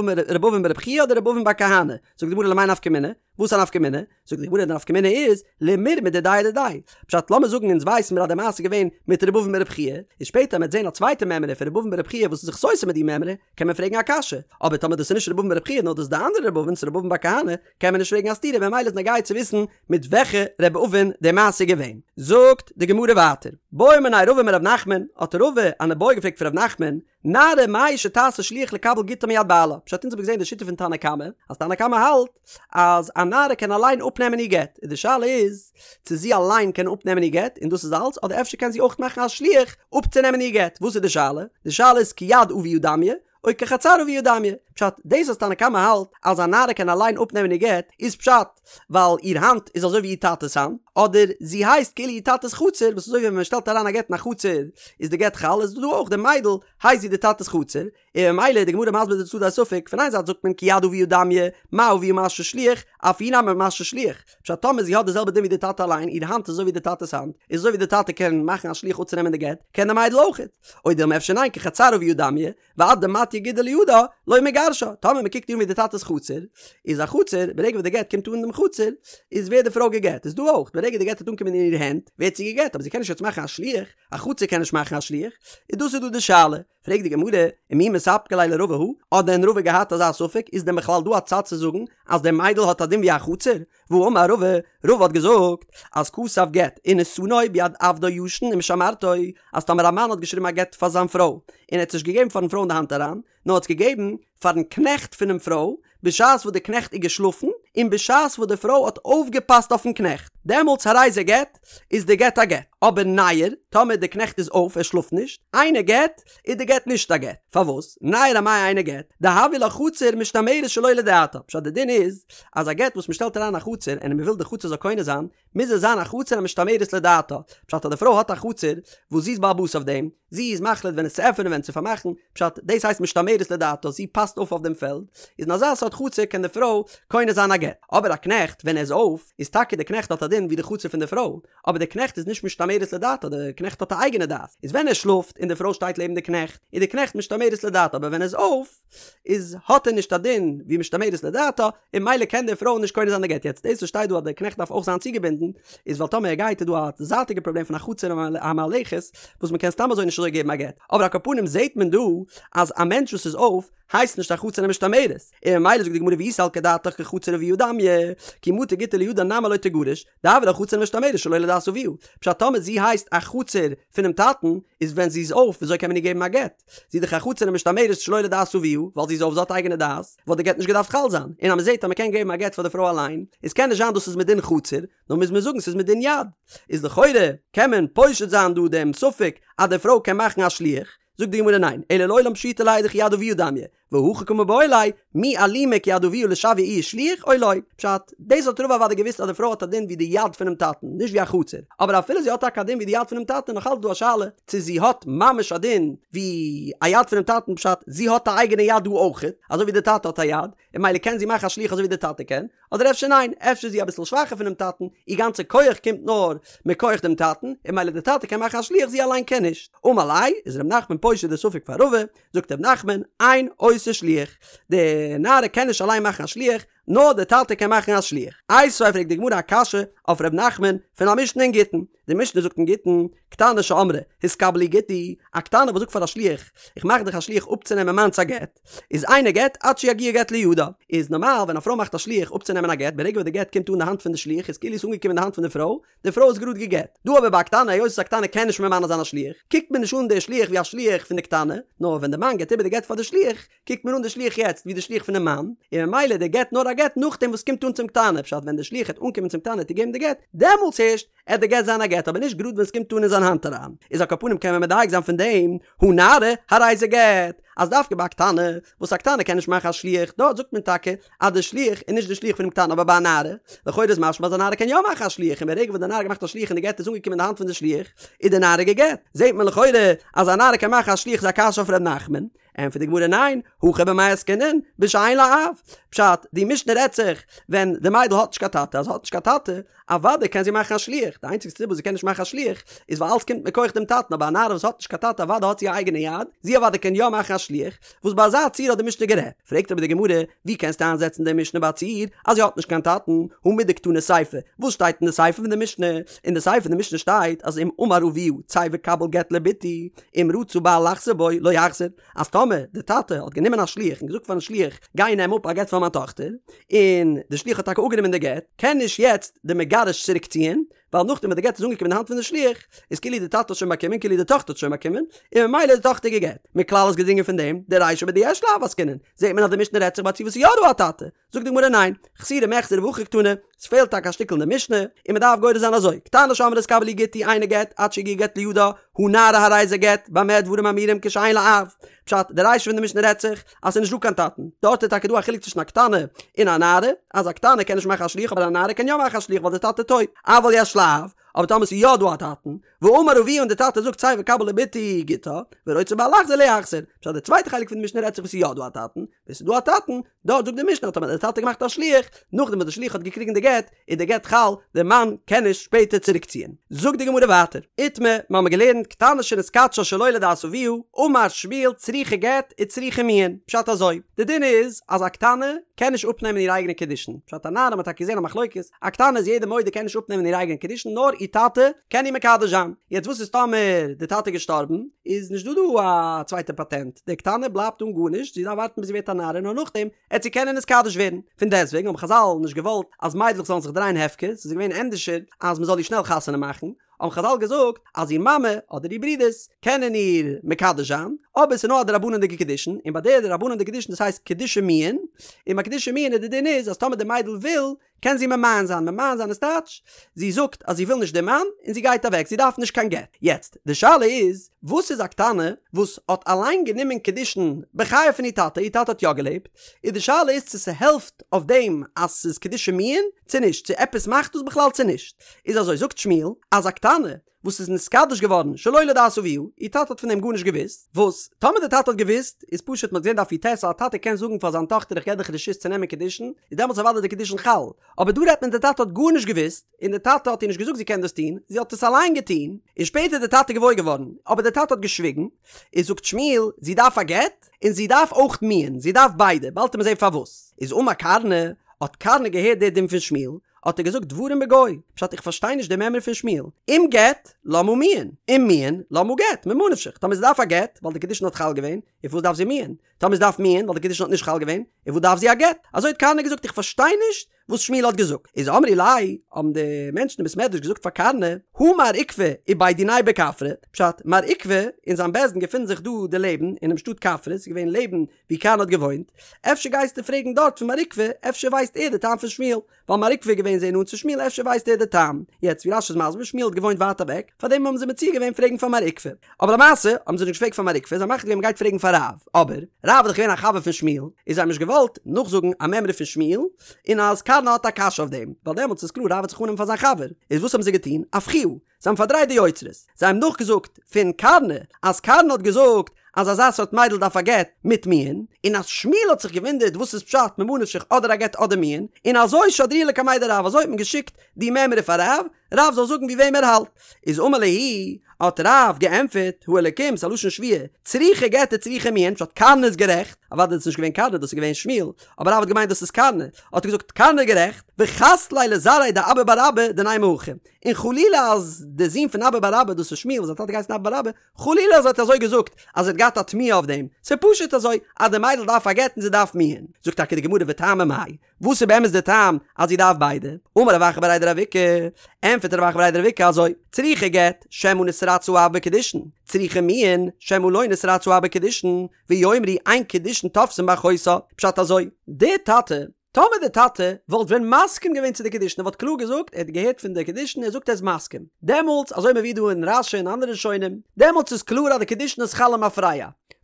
אבין בר' חייא אדער ר' אבין בר כהנא, זאגט די גמרא למאי נפקא מינה? וואס א נפקא מינה? זאגט די גמרא די נפקא מינה איז, למירמא דידיה אדידיה. פשט לאמיר זאגן אונז ווייסן מיר אז די מעשה איז געווען מיט ר' אבין בר' חייא, איז שפעטער מ'עט זען א צווייטע מימרא פון ר' אבין בר' חייא וואס איז זיך סותר מיט די מימרא, קען מען פרעגן א קשיא, אבער טאמער דאס איז נישט ר' אבין בר' חייא נאר דאס איז די אנדערע ר' אבין, ס'איז ר' אבין בר כהנא, קען מען נישט פרעגן א סתירה ממילא איז נוגע צו וויסן מיט וועלכע ר' אבין די מעשה איז געווען. זאגט די גמרא ווייטער, בעא מיניה רבא מרב נחמן, האט רבא אן איבעיא געפרעגט פון רב נחמן, נערה מהו שתעשה שליח לקבל גיטה מיד בעלה, פשט אונז האבן געזען די שיטה פון תנא קמא, אז תנא קמא האלט אז א נערה קען אליין אפנעמען איר גט, און די שאלה איז צו זי אליין קען אפנעמען איר גט און דאס איז אלץ, אדער אפשר קען זי אויך מאכן א שליח אפצונעמען איר גט, וואס איז די שאלה? די שאלה איז כיד אביה דמיא, או כחצר אביה דמיא, פשט, דאס אז תנא קמא האלט אז א נערה קען אליין אפנעמען איר גט, איז פשט ווייל איר האנט איז אזוי ווי איר טאטע'ס האנט, אדער זי הייסט כאילו איר טאטע'ס חצר, וואס אזוי ווי ווען מען שטעלט אריין א גט אין א חצר איז די גט חל, איז דא אויך די מיידל הייסט זי די טאטע'ס חצר, און ממילא איז די גמרא מסביר די צדדי הספק, פון איין זייט זאגט מען כיד אביה דמיא, מה אביה מכשיר שליח, אף היא נמי מכשירה שליח, פשט טאמער זי האט די זעלבע דין ווי די טאטע אליין, איר האנט איז אזוי ווי די טאטע'ס האנט, איז אזוי ווי די טאטע קען מאכן א שליח אפצונעמען די גט, קען די מיידל אויכעט. או דילמא אפשר ניין כחצר אביה דמיא, ועד דמטיא גיטה לידה לא מגרשה, טאמער מען קוקט איר אן ווי די טאטע'ס חצר, איז א חצר, ברגע וואס די גט קומט אן אין דעם חצר, איז ווערט די פרוי גע'גט, איז דא אויך, ברגע די גט וועט אנקומען אין איר הענט, ווערט זי גע'גט, אבער זי קען נישט יעצט מאכן א שליח, א חצר קען נישט מאכן א שליח, איז דאס איז דא די שאלה. פרעגט די גמרא, ומי מספקא ליה לרבא הא, האט דען רבא געהאט אזא ספק, איז דען בכלל דא א צד צו זאגן אז די מיידל האט א דין ווי א חצר? והאמר רבא, רבא האט געזאגט אז כתב גט ונתנו ביד עבדו ישן ומשמרתו, אז טאמער א מאן האט געשריבן א גט פאר זיין פרוי, און ער האט עס נישט געגעבן פארן פרוי אין די האנט אריין, נאר האט עס געגעבן פארן קנעכט פונעם פרוי, בשעת וואס די קנעכט איז געשלאפן, און בשעת וואס די פרוי האט אויפגעפאסט אויפן קנעכט, דעמאלטס הרי זה גט, איז די גט א גט. אבער ניעור, טאמער די קנעכט איז אויף, ער שלאפט נישט, אינו גט, איז די גט נישט א גט. פארוואס? ניעור אמאי אינו גט, דהויא לה חצר משתמרת שלא לדעתה. פשט די דין איז, אז א גט וואס מען שטעלט אריין א חצר און מען וויל די חצר זאל קונה זיין, מוז עס זיין א חצר המשתמרת לדעתה. פשט אז די פרוי האט א חצר וואס זי איז בעל הבית אויף דעם, זי איז מחליט ווען עס צו עפענען ווען צו פארמאכן, פשט, דאס הייסט משתמרת לדעתה, זי פאסט אויף אויף דעם פעלד, איז אין אזא סארט חצר קען די פרוי קונה זיין א גט. אבער א קנעכט ווען ער איז אויף, איז טאקע די קנעכט האט א דין ווי די חצר פון די פרוי, אבער די קנעכט איז נישט משתמרת לדעתה, די קנעכט האט א אייגענע דעת, איז ווען ער שלאפט און די פרוי שטייט לעבן די קנעכט, איז די קנעכט משתמרת לדעתה, אבער ווען ער איז אויף, איז האט ער נישט א דין ווי משתמרת לדעתה, און ממילא קען די פרוי נישט קונה זיין די גט, יעצט דאס וואס שטייט דא אז די קנעכט דארף אויך זיין צוגעבינדן, איז ווייל טאמער ער גייט איז דא א זייטיגע פראבלעם פון א חצר המהלכת, וואס מען קען סתם אזוי נישט אזוי געבן א גט, אבער על כל פנים זעט מען דא אז א מענטש וואס איז אויף, הייסט נישט א חצר המשתמרת, און ממילא זאגט די גמרא ואי סלקא דעתך כחצר אביה דמיא, כי מטא גיטא לידה נמי לא תיגרש, דהויא לה חצר המשתמרת שלא לדעת אביה, פשט טאמער זי הייסט א חצר פונעם טאטן, איז ווען זי איז אויף וויאזוי קען מען איר געבן א גט? זי איז דאך א חצר המשתמרת שלא לדעת אביה, ווייל זי איז אויף זי האט אייגענע דעת, וואלט די גט נישט געדארפט חל זיין, און אז מען זעט אז מען קען געבן א גט פאר די פרוי אליין, איז קען נישט זיין דאס איז מדין חצר, נאר מוז מען זאגן ס'איז מדין יד. איז לכאורה קען מען פושט זיין דא דעם ספק אז די פרוי קען מאכן א שליח, זאגט די גמרא ניין, אלא לעולם פשיטא ליה דכיד אביה דמיא, והכי קא מיבעיא ליה, מי אלימא כיד אביה לשויי איהי שליח או לא? פשט, דאס האט רבא אוודאי געוואוסט אז די פרוי האט א דין ווי די יד פונעם טאטן, נישט ווי א חצר, אבער אפילו זי האט טאקע א דין ווי די יד פונעם טאטן איז נאך אלץ דא א שאלה צו זי האט ממש א דין ווי א יד פונעם טאטן, פשט, זי האט א אייגענע יד דא אויכעט, אזוי ווי די טאטע האט א יד, און ממילא קען זי מאכן א שליח אזוי ווי די טאטע קען, אדער אפשר ניין, אפשר איז זי אביסל שוואכער פונעם טאטן, איר גאנצע כח קומט נאר מכח דעם טאטן, און ממילא די טאטע קען מאכן א שליח זי אליין קען נישט. אמר ליה, איז ר' נחמן פושט די ספק פאר רבא, זאגט ר' נחמן, אין עושה שליח, די נערה קען נישט אליין מאכן א שליח, נאר די טאטע קען מאכן א שליח. איתיביה פרעגט די גמרא א קשיא אויף ר' נחמן פון א משנה אין גיטין, די משנה זאגט אין גיטין, קטנה שאמרה, התקבל לי גיטי, א קטנה וואס זאגט פאר א שליח, איך מאך דיך א שליח אפצונעמען מיינס א גט, איז אינו גט עד שיגיע גט לידה. איז נארמאל ווען א פרוי מאכט א שליח אפצונעמען א גט, ברגע וואס די גט קומט אן די האנט פון די שליח איז כאילו עס אנגעקומען אין די האנט פון די פרוי, די פרוי איז גראד גע'גט. דא אבער ביי א קטנה, היות וואס א קטנה קען נישט ממנה זיין א שליח, קוקט מען נישט אן די שליח ווי א שליח פון די קטנה, נאר ווען די מאן געבט איבער די גט פאר די שליח, קוקט מען אן די שליח יעצט ווי די שליח פונעם מאן, און ממילא די גט נאר א גט נאכדעם וואס קומט אן צום קטנה, פשט ווען די שליח העט אנקומען צום קטנה צו געבן די גט, דעמאלטס הערשט עט די גט זיין א גט אבער נישט גראד ווען סקומט אן אין זיין האנט אריין, איז על כל פנים קען מען מדייק זיין פון דעם, הא נערה, הרי זה גט, אז דווקא ביי א קטנה, וואס א קטנה קען נישט מאכן א שליח, דארט זאגט מען טאקע אז די שליח איז נישט די שליח פונעם קטנה אבער ביי א נערה, לכאורה איז משמע אז א נערה קען יא מאכן א שליח און ברגע וואס די נערה האט געמאכט א שליח און די גט איז אנגעקומען אין די האנט פון די שליח, איז די נערה גע'גט. זעט מען לכאורה אז א נערה קען מאכן א שליח איז א קשיא אויף ר' נחמן. ענטפערט די גמרא ניין, הכא במאי עסקינן, בשאין לה אב. פשט, די משנה רעדט זיך ווען די מיידל האט נישט קיין טאטע, אז זי האט נישט קיין טאטע, אוודאי קען זי מאכן א שליח, די איינציגסטע סיבה וואס זי קען נישט מאכן א שליח איז ווייל אלץ קומט מכח דעם טאטן, אבער א נערה וואס האט נישט קיין טאטע אוודאי האט זי א אייגענע יד, זי אוודאי קען יא מאכן א שליח, וואס ביי אזא ציור האט די משנה גערעדט. פרעגט אבער די גמרא, ווי קענסטו איינזעצן די משנה ביי א ציור אז זי האט נישט קיין טאטן, הא מדקתני סיפא, וואס שטייט אין די סיפא פון די משנה? אין די סיפא פון די משנה שטייט אז אם אמר אביה צא וקבל גט לבתי, אם רצה בעל לחזור בו לא יחזור, אז טאמער די טאטע האט גענומען א שליח און געזאגט פארן שליח גיי נעם אפ א גט פאר מיין טאכטער, און די שליח האט טאקע אפגענומען די גט, קען נישט יעצט די מגרש צוריק ציען, ווייל נאכדעם וואס די גט איז אנגעקומען אין די האנט פון די שליח, איז כאילו די טאטע האט שוין באקומען, כאילו די טאכטער האט שוין באקומען, און ממילא איז די טאכטער גע'גט. מכלל איז געדרינגען פון דעם, דרישא בדיש לה אב עסקינן, זעט מען אז די משנה רעדט זיך ביי א ציור וואס איז יא דא א טאטע. זאגט די גמרא ניין, חסורי מחסרא והכי קתני, ס'פעלט טאקע א שטיקל אין די משנה, און מ'דארף גורס זיין אזוי, קטנה שאמרה קבלי גיטי אינו גט עד שיגיע גט לידה, הא נערה הרי זה גט, במה דברים אמורים כשאין לה אב. פשט, די רישא פון די משנה רעדט זיך אז ס'איז נישט דא קיין טאטן, דארט איז טאקע דא א חילוק צווישן א קטנה און א נערה, אז א קטנה קען נישט מאכן א שליח אבער א נערה קען יא מאכן א שליח ווייל די טאטע טויט, אבל יש לה אב, אבער טאמער ס'איז יא דא א טאטן, ואמר אביה און די טאטע זאגט צא וקבל לבתי גיטה, ורוצה בעל לחזור לא יחזור, פשט די צווייטע חלק פון די משנה רעדט זיך וואס ס'איז יא דא א טאטן, ווען ס'איז דא א טאטן, דארט זאגט די משנה אז טאמער האט די טאטע געמאכט א שליח, נאכדעם וואס די שליח האט געקריגן די גט, איז די גט חל, די מאן קען נישט שפעטער צוריקציען. זאגט די גמרא ווייטער, איתמר, מיר האבן געלערנט, קטנה שנתקדשה שלא לדעת אביה, אמר שמואל צריכה גט וצריכה מיאון, פשט אזוי, די דין איז אז א קטנה קען נישט אפנעמען איר אייגענע קידושין, פשט א נערה האט מען טאקע געזען א מחלוקת, א קטנה איז יעדער מודה קען נישט אפנעמען איר אייגענע קידושין נאר איר טאטע קען איר מקדש זיין, יעצט וואס איז טאמער די טאטע איז געשטארבן, איז נישט דא דא א צווייטע פאטענט, די קטנה בלייבט אן גארנישט, זי דארף ווארטן ביז זי ווערט א נערה נאר נאכדעם עט זי קענען נתקדש ווערן, פון דעסטוועגן האבן חזל נישט געוואלט אז מיידלעך זאלן זיך דרייען הפקר, ס'איז געווען ענדערשער אז מ'זאל איר שנעל חתונה מאכן, האבן חזל געזאגט אז איר מאמע אדער איר ברודערס קענען איר מקדש זיין, אבער ס'איז נאר א דרבנן'דיגע קידושין, און ביי די דרבנן'דיגע קידושין דאס הייסט קידושי מיאון, און ביי קידושי מיאון איז די דין איז אז טאמער די מיידל וויל קען זי ממאן זיין, ממאן זיין איז טייטש, זי זאגט אז זי וויל נישט די מאן און זי גייט אוועק, זי דארף נישט קיין גט. יעצט, די שאלה איז, וואס איז א קטנה וואס האט אליין גענומען קידושין בחייו פון איר טאטע, איר טאטע האט יא געלעבט, איז די שאלה איז צו ס'העלפט אויף דעם אז ס'איז קידושי מיאון צו נישט, צו עפעס מאכט דאס בכלל צו נישט. איז אזוי, זאגט שמואל, אז א קטנה וואס איז נתקדש געווארן שלא לדעת אביה, איר טאטע האט פון דעם גארנישט געוואוסט, וואס טאמער די טאטע האט געוואוסט, איז פשוט מ'האט געזען דף י"ט אז א טאטע קען זאגן פאר זיין טאכטער איך געב דיך רשות צו נעמען קידושין, איז דעמאלטס אוודאי די קידושין חל, אבער דא רעדט מען די טאטע האט גארנישט געוואוסט, און די טאטע האט איר נישט געזאגט זי קען דאס טון, זי האט עס אליין געטון, און שפעטער איז די טאטע געוואויר געווארן, אבער די טאטע האט געשוויגן, איז זאגט שמואל, זי דארף א גט, און זי דארף אויך מיאון, זי דארף ביידע, באלד וועט מען זען פארוואס. איז אמר קרנא, האט קרנא געהערט די דין פון שמואל, האט ער געזאגט דברים בגו, פשט איך פארשטיי נישט די מימרא פון שמואל, אם גט, למה מיאון, אם מיאון, למה גט, ממה נפשך, טאמער זי דארף א גט, ווייל די קידושין האט חל געווען, און פארוואס דארף זי מיאון? טאמער זי דארף מיאון, ווייל די קידושין האט נישט חל געווען, און וואס דארף זי א גט? אזוי האט קרנא געזאגט איך פארשטיי נישט וואס שמואל האט געזאגט. איז אמרי ליה, האבן די מענטשן אין בית מדרש געזאגט פאר קרנא, הא מר עוקבא ובי דיניה בכפרי, פשט, מר עוקבא און זיין בית דין געפינען זיך דא דערלעבן אינעם שטאט כפרי, ס'איז געווען לעבן ווי קרנא האט געוואוינט, אפשר גייסטו פרעגן דארט פון מר עוקבא, אפשר ווייסט ער די טעם פון שמואל, ווייל מר עוקבא איז געווען זייער נאנט צו שמואל אפשר ווייסט ער די טעם. יעצט ווי רש"י איז מסביר שמואל האט געוואוינט ווייט אוועק, פארדעם האבן זיי מציע געווען פרעגן פאר מר עוקבא. אבער למעשה האבן זיי נישט געפרעגט פאר מר עוקבא, זיי האבן מחליט געווען מ'גייט פרעגן פאר רב. אבער, רב איז דאך געווען א חבר פון שמואל, איז זיי האבן נישט געוואלט נאכזאגן א מימרא פון שמואל, און אז קרנא האט א קשיא אויף דעם, ווייל דעמאלטס איז קלאר רב וועט זיך אננעמען פאר זיין חבר. איז וואס האבן זיי געטון? אפכוה. זיי האבן פארדרייט די יוצרות. זיי האבן נאכגעזאגט פון קרנא אז קרנא האט געזאגט אז אזא סארט מיידל דארף א גט מיט מיאון, און אז שמואל האט זיך געוואונדערט וואס איז פשט ממה נפשך אדער א גט אדער מיאון, און אזוי שדרוה לקמיה דרב אזוי האט מען געשיקט די מימרא פאר רב, רב זאל זאגן ווי וועם ער האלט. איז אמר להו, האט רב געענטפערט, האלקים, ס'איז א לשון שבועה, צריכה גט וצריכה מיאון, פשט קרנא איז גערעכט, אוודאי איז עס נישט געווען קרנא דאס איז געווען שמואל, אבער רב האט געמיינט דאס איז קרנא, האט ער געזאגט קרנא איז גערעכט, וחס ליה לזרעיה דאבא בר אבא דנימא הכי, און חלילה אז די זון פון אבא בר אבא, דאס איז שמואל וואס זיין טאטע געהייסן אבא בר אבא, חלילה אז ער האט אזוי געזאגט אז ער האט געהאט א תמיהה אויף דעם, ס'איז פשוט אזוי אז די מיידל דארף א גט און זי דארף מיאון. זאגט טאקע די גמרא וטעמא מאי, וואס איז באמת די טעם אז זי דארף ביידע? אמר רב אחא בריה דרב איקא, ענטפערט רב אחא בריה דרב איקא אזוי, צריכה גט, שמא נתרצה האב בקידושין, צריכה מיאון, שמא לא נתרצה האב בקידושין, ויאמרו אין קידושין תופסין באחותה, פשט אזוי, די טאטע טאמער די טאטע וואלט ווען מסכים געווען צו די קידושין ער וואלט קלאר געזאגט ער האט געהערט פון די קידושין ער זאגט ער איז מסכים דעמאלטס אזוי מבואר דא אין רש"י און אנדערע ראשונים דעמאלטס איז קלאר אז די קידושין איז חל למפרע.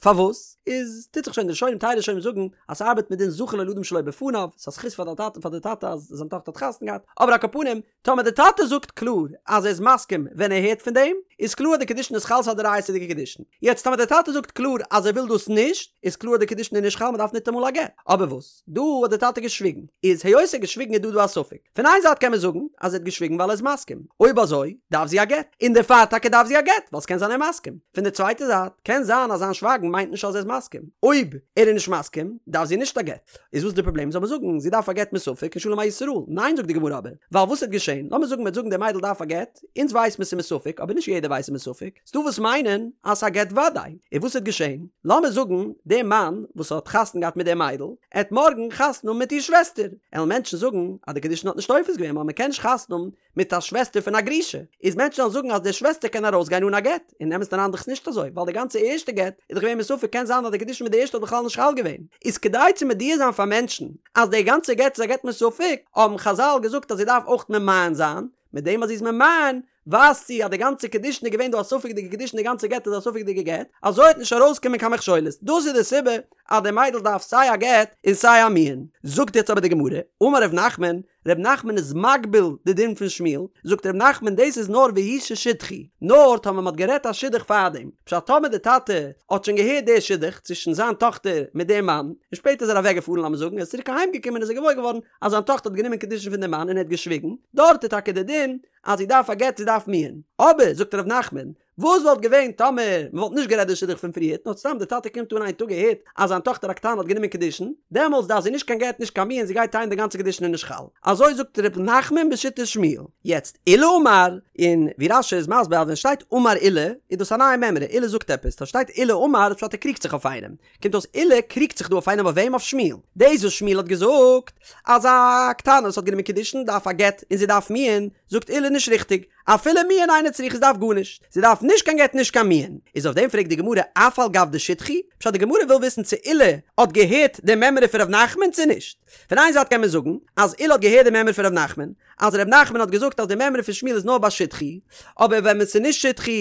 פארוואס? איז טוט זיך שוין די ראשונים טייל ראשונים זאגן אז ס'ארבעט מיט דין זכין לו לאדם שלא בפניו, ס'איז א זכות פאר די טאטע פאר די טאטע אז זיין טאכטער האט חתונה געהאט, אבער על כל פנים טאמער די טאטע זאגט קלאר אז ער איז מסכים ווען ער הערט פון דעם, איז קלאר אז די קידושין איז חל ס'איז א דאורייתא'דיגע קידושין. יעצט טאמער די טאטע זאגט קלאר אז ער וויל דאס נישט, איז קלאר אז די קידושין איז נישט חל מ'דארף ניטאמאל א גט. אבער וואס? דא האט די טאטע געשוויגן. איז היות ער האט געשוויגן איז דא דא א ספק. פון איין זייט קען מען זאגן אז ער האט געשוויגן ווייל ער איז מסכים. אויב אזוי דארף זי א גט. און דערפאר טאקע דארף זי א גט ווייל ס'קען זיין ער איז מסכים. פון די צווייטע זייט קען זיין אז זיין שווייגן מיינט נישט אז ער איז מסכים. אויב ער איז נישט מסכים דארף זי נישט א גט. איז וואס די פראבלעם? זאל מען זאגן זי דארף א גט מספק און שלום על ישראל? ניין זאגט די גמרא אבער, ווייל וואס וועט געשען? לאמיר זאגן מ'וועט זאגן די מיידל דארף א גט, אונז ווייס מיר ס'איז מספק אבער נישט יעדער ווייסט ס'איז מספק, ס'דא וואס מיינען אז ס'איז א גט וודאי, און וואס וועט געשען? לאמיר זאגן די מאן וואס האט חתונה געהאט מיט די מיידל, עט מארגן חתונה האבן מיט איר שוועסטער, עלן מענטשן זאגן אז די קידושין האט נישט תופס געווען ווייל מ'קען נישט חתונה האבן מיט א שוועסטער פון א גרושה, איז מענטשן וועלן זאגן אז די שוועסטער קען ארויסגיין אן א גט, אין אמת'ן אריין דאך נישט אזוי, ווייל די גאנצע ערשטע גט איז דאך געווען מספק קען זיין אז די קידושין מיט די ערשטע האט בכלל נישט חל געווען, איז כדי צו מודיע זיין פאר מענטשן אז די גאנצע גט איז א גט מספק, האבן חזל געזאגט אז זי דארף אויך ממאן זיין, מיט דעם אז זי איז ממאן ווייזט זי אז די גאנצע קידושין איז געווען דא א ספק'דיגע קידושין די גאנצע גט איז א ספק'דיגע גט, אזוי וועט נישט ארויסקומען קיין מכשולות, דאס איז די סיבה אז די מיידל דארף סיי א גט און סיי א מיאון. זאגט יעצט אבער די גמרא, אמר ר' נחמן, ר' נחמן איז מגביל די דין פון שמואל, זאגט ר' נחמן דאס איז נאר והוא ששידכו, נאר טאמער מ'האט גערעדט א שידוך פארדעם, פשט טאמער די טאטע האט שוין געהערט די שידוך צווישן זיין טאכטער מיט דעם מאן, און שפעטער איז ער אוועק געפארן לאמיר זאגן ער איז צוריק אהיים געקומען איז ער געוואויר געווארן אז זיין טאכטער האט גענומען קידושין פון דעם מאן און ער האט געשוויגן, דארט איז טאקע די דין אז זי דארף א גט זי דארף מיאון, אבער זאגט ר' נחמן וואס וואלט געווען טאמער מען וואלט נישט גערעדט די שידוך פון פריערט נאר סתם די טאטע קומט אן איין טאג ער הערט אז זיין טאכטער הקטנה האט גענומען קידושין, דעמאלטס דארף זי נישט קיין גט נישט קיין מיאון זי גייט טענה'ן די גאנצע קידושין איז נישט חל. אזוי זאגט ר' נחמן בשיטת שמואל. יעצט עולא אמר, און ווי רש"י איז מסביר אז ווען שטייט אמר עולא איז דאס א נייע מימרא, עולא זאגט עפעס, טאמער שטייט עולא אמר איז פשט ער קריגט זיך אויף איינעם, קומט אויס עולא קריגט זיך דא אויף איינעם אויף וועם? אויף שמואל. דאס וואס שמואל האט געזאגט אז א קטנה וואס האט גענומען קידושין דארף א גט און זי דארף מיאון, זאגט עולא נישט ריכטיג, אפילו מיאון אינה צריכה זי דארף גארנישט, זי דארף נישט קיין גט נישט קיין מיאון. איז אויף דעם פרעגט די גמרא אף על גב דשידכו? פשט די גמרא וויל וויסן צו עולא האט געהערט די מימרא פון ר' נחמן צו נישט. פון איין זייט קען מען זאגן אז עולא האט געהערט די מימרא פון ר' נחמן, אז ר' נחמן האט געזאגט אז די מימרא פון שמואל איז נאר ביי שידכו, אבער ווען עס איז נישט שידכו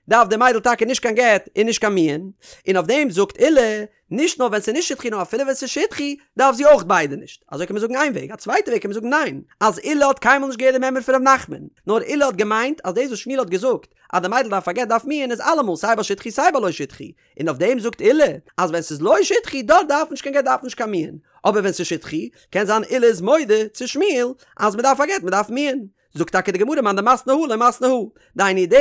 דארף די מיידל טאקע נישט קיין גט און נישט קיין מיאון, און אויף דעם זאגט עולא, נישט נאר ווען ס'איז נישט שידכו נאר אפילו ווען ס'איז שידכו דארף זי אויך ביידע נישט, אזוי קען מען זאגן איין וועג, א צווייטע וועג קען מען זאגן ניין, אז עולא האט קיינמאל נישט געהערט די מימרא פון ר' נחמן, נאר עולא האט געמיינט אז דאס וואס שמואל האט געזאגט אז די מיידל דארף א גט דארף מיאון איז אלעמאל סיי ביי שידכו סיי ביי לא שידכו, און אויף דעם זאגט עולא אז ווען ס'איז לא שידכו דארט דארף נישט קיין גט דארף נישט קיין מיאון, אבער ווען ס'איז שידכו קען זיין עולא איז מודה צו שמואל אז מ'דארף א גט מ'דארף מיאון. זאגט טאקע די גמרא מאן דמתני הא לא מתני הא, דהיינו די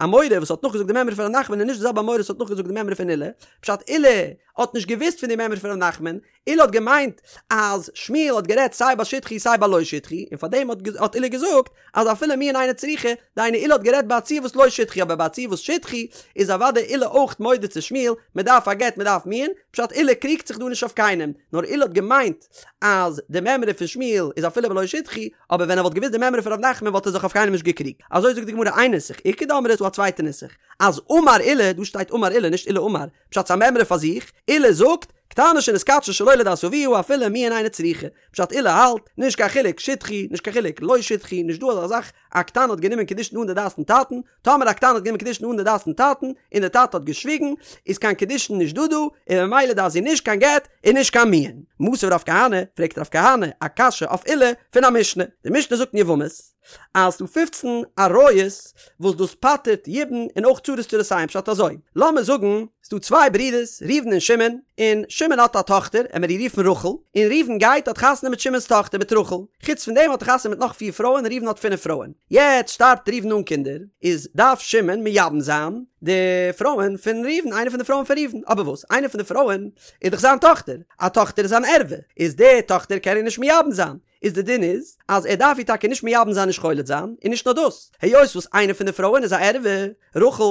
אמורא וואס האט נאכגעזאגט די מימרא פון ר' נחמן איז נישט די זעלבע אמורא וואס האט נאכגעזאגט די מימרא פון עולא, פשט עולא האט נישט געוואוסט פון די מימרא פון ר' נחמן, עולא האט געמיינט אז שמואל האט גערעדט סיי ביי שידכו סיי ביי לא שידכו, און פארדעם האט עולא געזאגט אז אפילו מיאון אינה צריכה, דהיינו עולא האט גערעדט ביי א ציור וואס לא שידכו אבער ביי א ציור וואס שידכו איז אוודאי עולא אויך מודה צו שמואל, מען דארף א גט מען דארף מיאון, פשט עולא קריגט זיך דא נישט אויף קיינעם, נאר עולא האט געמיינט אז די מימרא פון שמואל איז אפילו בלא שידכו, אבער ווען ער וואלט געוואוסט די מימרא פון ר' נחמן וואלט ער זיך אויף קיינעם נישט געקריגט. אזוי זאגט די גמרא איין נוסח, איכא דאמרי איז דא א צווייטע נוסח, אז אמר עולא, דא שטייט אמר עולא נישט עולא אמר, פשט ס'א מימרא פאר זיך, עולא זאגט, קטנה שנתקדשה שלא לדעת אביה אפילו מיאון אינה צריכה, פשט עולא האלט, נישט קיין חילוק שידכו, נישט קיין חילוק לא שידכו, נישט דא אזא זאך, א קטנה האט גענומען קידושין אן די דעת פון טאטן, טאמער א קטנה האט גענומען קידושין אן די דעת פון טאטן, און די טאטע האט געשוויגן, איז קיין קידושין נישט דא דא, און ממילא דארף זי נישט קיין גט און נישט קיין מיאון. מתיב רב כהנא, פרעגט רב כהנא א קשיא אויף עולא פון א משנה. די משנה זאגט אין יבמות, אז ס'דא פופצן עריות וואס דאס פטר'ט יבום און אויך צרות צרותיהן פשט אזוי, לאמיר זאגן ס'דא צוויי ברידערס ראובן און שמעון, און שמעון האט א טאכטער, עמער איר רופן רחל, און ראובן גייט האט חתונה מיט שמעון'ס טאכטער מיט רחל, חוץ פון דעם האט ער חתונה מיט נאך פיר פרויען, ראובן האט פינף פרויען. יעצט שטארבט ראובן אן קינדער, איז דארף שמעון מייבם זיין די פרויען פון ראובן, איינע פון די פרויען פון ראובן, אבער וואס? איינע פון די פרויען איז דאך זיין טאכטער, א טאכטער איז אן ערווה, איז די טאכטער קען ער נישט מייבם זיין, איז די דין איז אז ער דארף איר טאקע נישט מייבם זיין נישט חולץ זיין, און נישט נאר דאס, היות וואס איינע פון די פרויען איז א ערווה, רחל,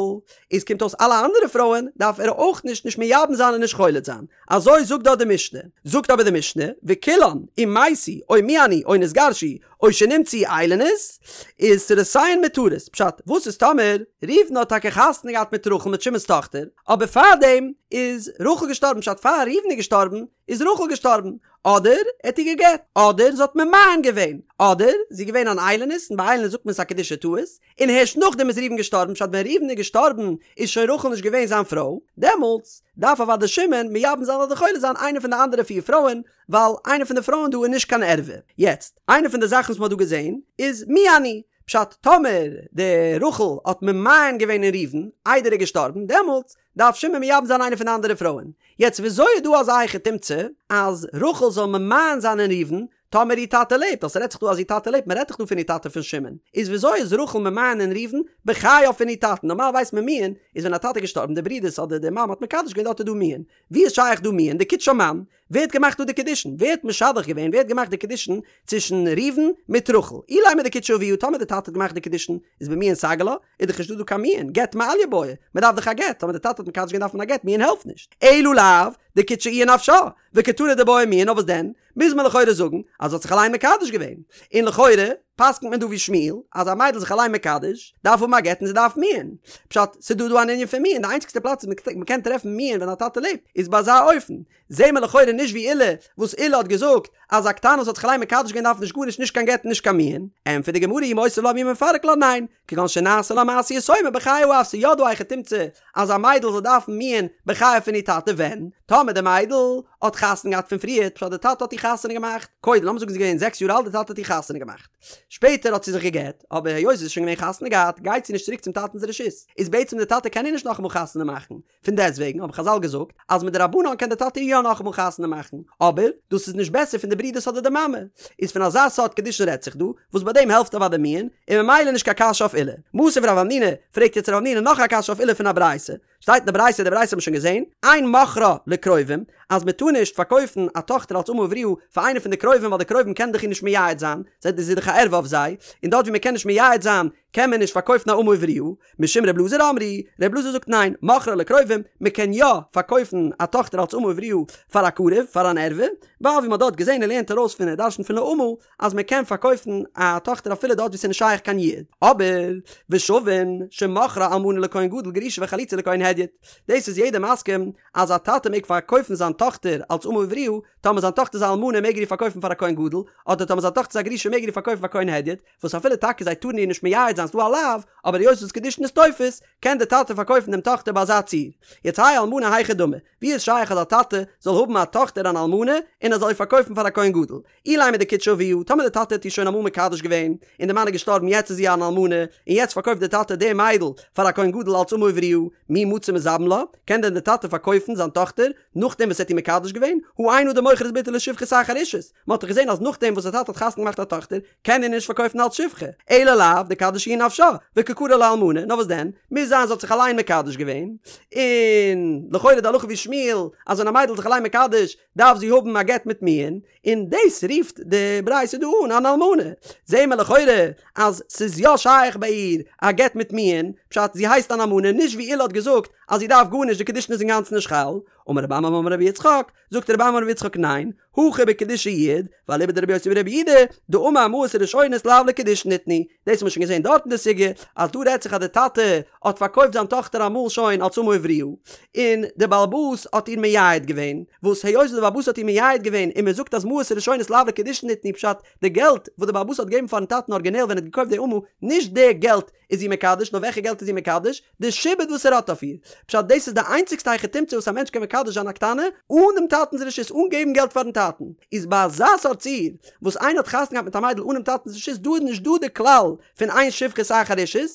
איז קומט אויס אלע אנדערע פרויען דארף ער אויך נישט נישט מייבם זיין און נישט חולץ זיין, אזוי זאגט דארט די משנה, זאגט אבער די משנה, וכולן, אם מתו, או מיאנו, או נתגרשו, או שנמצאו איילונית, איז צרותיהן מותרות, פשט, וואס איז טאמער ראובן האט טאקע חתונה געהאט מיט רחל מיט שמעון'ס טאכטער, אבער פארדעם איז רחל געשטארבן, פשט פאר ראובן איז געשטארבן, איז רחל געשטארבן, אדער ער האט איר גע'גט, אדער זי האט ממאן געווען, אדער זי איז געווען אן איילונית, און ביי איילונית זאגט מען ס'איז א קידושי טעות, און הערשט נאכדעם איז ראובן געשטארבן, פשט ווען ראובן איז געשטארבן איז שוין רחל נישט געווען זיין פרוי, דעמאלטס דארף אוודאי שמעון מייבם זיין אדער חולץ זיין איינע פון די אנדערע פיר פרויען, ווייל איינע פון די פרויען דא איז נישט קיין ערווה. יעצט, איינע פון די זאכן וואס מ'האט דא געזען איז מיאן הוא, פשט טאמער די רחל האט ממאן געווען אין ראובן איידער ער איז געשטארבן, דעמאלטס דארף שמעון מייבם זיין איינע פון די אנדערע פרויען. יעצט וויאזוי איז דא אזא היכי תמצא אז רחל זאל ממאן זיין אין ראובן טאמער איר טאטע לעבט, ווייל ס'רעדט זיך דא אז איר טאטע לעבט, מ'רעדט דאך דא פון איר טאטע פון שמעון, איז וויאזוי איז רחל ממאן אין ראובן בחייו פון איר טאטן, נארמאל ווייסט מען מיאון איז ווען א טאטע איז געשטארבן די ברודערס אדער די מאמע האט מקדש געווען דארט איז דא מיאון, ווי איז שייך דא מיאון דקדשה מאן? ווער האט געמאכט דא די קידושין? ווער האט משדך געווען? ווער האט געמאכט די קידושין צווישן ראובן מיט רחל? אילימא דקדשה אביה, טאמער די טאטע האט געמאכט די קידושין איז במיאון סגי לה, איז דאך נישטא דא קיין מיאון, גט מעליא בעי, מען דארף דאך א גט, טאמער די טאטע האט מקדש געווען דארף מען א גט, מיאון העלפט נישט. אלא לאו דקדשה איהי נפשה, וקתני דבעיא מיאון, נאר וואס דען? מוז מען לכאורה זאגן אז זי האט זיך אליין מקדש געווען, און לכאורה פסק'נט מען דא ווי שמואל אז א מיידל זיך אליין מקדש דארף האבן א גט און זי דארף מיאון, פשט ס'דא דא אן ענין פון מיאון, די איינציגסטע פלאץ וואס מ'קען טרעפן מיאון ווען א טאטע לעבט איז ביי אזא אופן, זעהן מיר לכאורה נישט ווי עולא וואס עולא האט געזאגט אז א קטנה וואס האט זיך אליין מקדש געווען דארף נישט גארנישט נישט קיין גט און נישט קיין מיאון, ענטפערט די גמרא אי מותיב לה ואי מפרק לה ניין, כגון שנעשה לה מעשה יתומה בחיי האב ס'יא דא א היכי תמצא אז א מיידל זאל דארפן מיאון בחייו פון איר טאטע ווען? טאמער די מיידל האט חתונה געהאט פון פריערט פשט די טאטע האט איר חתונה געמאכט קודם לאמיר זאגן זי איז געווען זעקס יאר אלט די טאטע האט איר חתונה געמאכט שפעטער האט זי זיך גע'גט אבער היות זי איז שוין געווען חתונה געהאט גייט זי נישט צוריק צום טאטנ'ס רשות איז בעצם די טאטע קען איר נישט נאכאמאל חתונה מאכן פון דעסטוועגן האבן חזל געזאגט אז מדרבנן קען די טאטע איר יא נאכאמאל חתונה מאכן, אבער דאס איז נישט בעסער פון די ברודערס אדער די מאמע. איז פון אזא סארט קידושין רעדט זיך דא, וואס ביי דעם העלפט אוודאי מיאון, און ממילא נישט קיין קשיא אויף עולא. מתיב רב המנונא, פרעגט יעצט רב המנונא נאך א קשיא אויף עולא פון א ברייתא. שטייט אין די ברייתא, די ברייתא האט מען שוין געזען, אין מוכרה לקרובים, אז מען טאר נישט פארקויפן א טאכטער אלס אמה עבריה פאר איינער פון די קרובים ווייל די קרובים קענען דאך איר נישט מייעד זיין, זי איז דאך א ערווה אויף זיי, און דארט ווי מען קען נישט מייעד זיין קען מען נישט פארקויפן א אמה עבריה, משום ר' אלעזר אמרו, ר' אלעזר זאגט ניין, מוכרה לקרובים, מען קען יא פארקויפן א טאכטער אלס אמה עבריה פאר א קרוב, פאר אן ערווה, ווייל ווי מען האט דארט געזען ער לערנט ארויס פון ער דרשנט פון לאמה אז מען קען פארקויפן א טאכטער אפילו דארט ווי ס'איז נישט שייך קיין יעוד, אבער ושווין שמוכרה אלמנה לכהן גדול גרושה וחלוצה לכהן הדיוט, דאס איז יעדער מסכים אז א טאטע מעג פארקויפן זיין טאכטער אלס אמה עבריה, טאמער זיין טאכטער איז א אלמנה מעג ער איר פארקויפן פאר א כהן גדול, אדער טאמער זיין טאכטער איז א גרושה מעג ער איר פארקויפן פאר כהן הדיוט, וואס אפילו טאקע זיי טארן איר נישט מייעד זיין ס'דא א לאו, אבער היות וואס קידושין איז תופס, קען די טאטע פארקויפן דעם טאכטער ביי אזא ציור. יעצט האי אלמנה היכי דמי, ווי איז שייך אז א טאטע זאל האבן א טאכטער אן אלמנה און ער זאל איר פארקויפן פאר א כהן גדול? אילימא דקדשה אביה, טאמער די טאטע האט איר שוין אמאל מקדש געווען, און די מאן איז געשטארבן יעצט איז זי אן אלמנה, און יעצט פארקויפט די טאטע די מיידל פאר א כהן גדול אלס אמה עבריה, מי מצי מזבין לה, קען דען די טאטע פארקויפן זיין טאכטער נאכדעם וואס ער האט איר מקדש געווען? הא אין אדם מוכר את בתו לשפחות אחר אישות, מען האט דאך געזען אז נאכדעם וואס די טאטע האט חתונה געמאכט א טאכטער, קען ער נישט פארקויפן אלס שפחה, אלא לאו דקדשה היא נפשה, וקא קרי לה אלמנה, נאר וואס דען, מוז זיין זי האט זיך אליין מקדש געווען, און לכאורה די הלכה ווי שמואל, אז ווען א מיידל איז זיך אליין מקדש, דארף זי האבן א גט מיט מיאון, און דאס רופט די ברייתא דא אן אן אלמנה, זעהן מיר לכאורה אז ס'איז יא שייך ביי איר א גט מיט מיאון, פשט זי הייסט אן אלמנה, נישט ווי עולא האט געזאגט אז זי דארף גארנישט די קידושין איז אינגאנצן נישט חל, אמר רב עמרם אמר רבי יצחק, זאגט רב עמרם אמר רבי יצחק ניין, הכא בקידושי יעוד, ואליבא דרבי יוסי ברבי יהודה, דאמר מעות הראשונות לאו לקידושין ניתנו, דאס האט מען שוין געזען דארט אין די סוגיא, אז דא רעדט זיך אז די טאטע האט פארקויפט זיין טאכטער אמאל שוין אלס אמה עבריה, און די בעל הבית האט איר מייעד געווען, וואס היות די בעל הבית האט איר מייעד געווען און מען זאגט אז מעות הראשונות לאו לקידושין ניתנו פשט די געלט וואס די בעל הבית האט געגעבן פארן טאטן ארגינעל ווען ער האט געקויפט די אמה, נישט די געלט איז זי מקדש, נאר וועלכע געלט איז זי מקדש? די שעבוד וואס ער האט אויף איר. פשט, דאס איז די איינציגסטע היכי תמצא וואס א מענטש קען מקדש זיין א קטנה, אן דעם טאטנ'ס רשות, אן געבן געלט פאר'ן טאטן. איז ביי אזא סארט ציור, וואס איינער האט חתונה געהאט מיט א מיידל אן דעם טאטנ'ס רשות, דא איז נישט דא די כלל פון אין שפחות אחר אישות,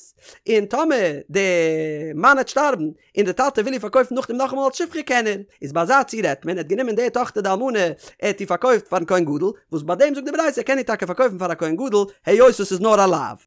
און טאמער די מאן העט שטארבן, און די טאטע וויל איר פארקויפן נאכדעם נאכאמאל אלס שפחה קען ער. איז ביי אזא ציור רעדט מען, ער האט גענומען די טאכטער די אלמנה, ער האט איר פארקויפט פאר'ן כהן גדול, וואס ביי דעם זאגט די ברייתא ער קען איר טאקע פארקויפן פאר א כהן גדול, היות עס איז נאר א לאו.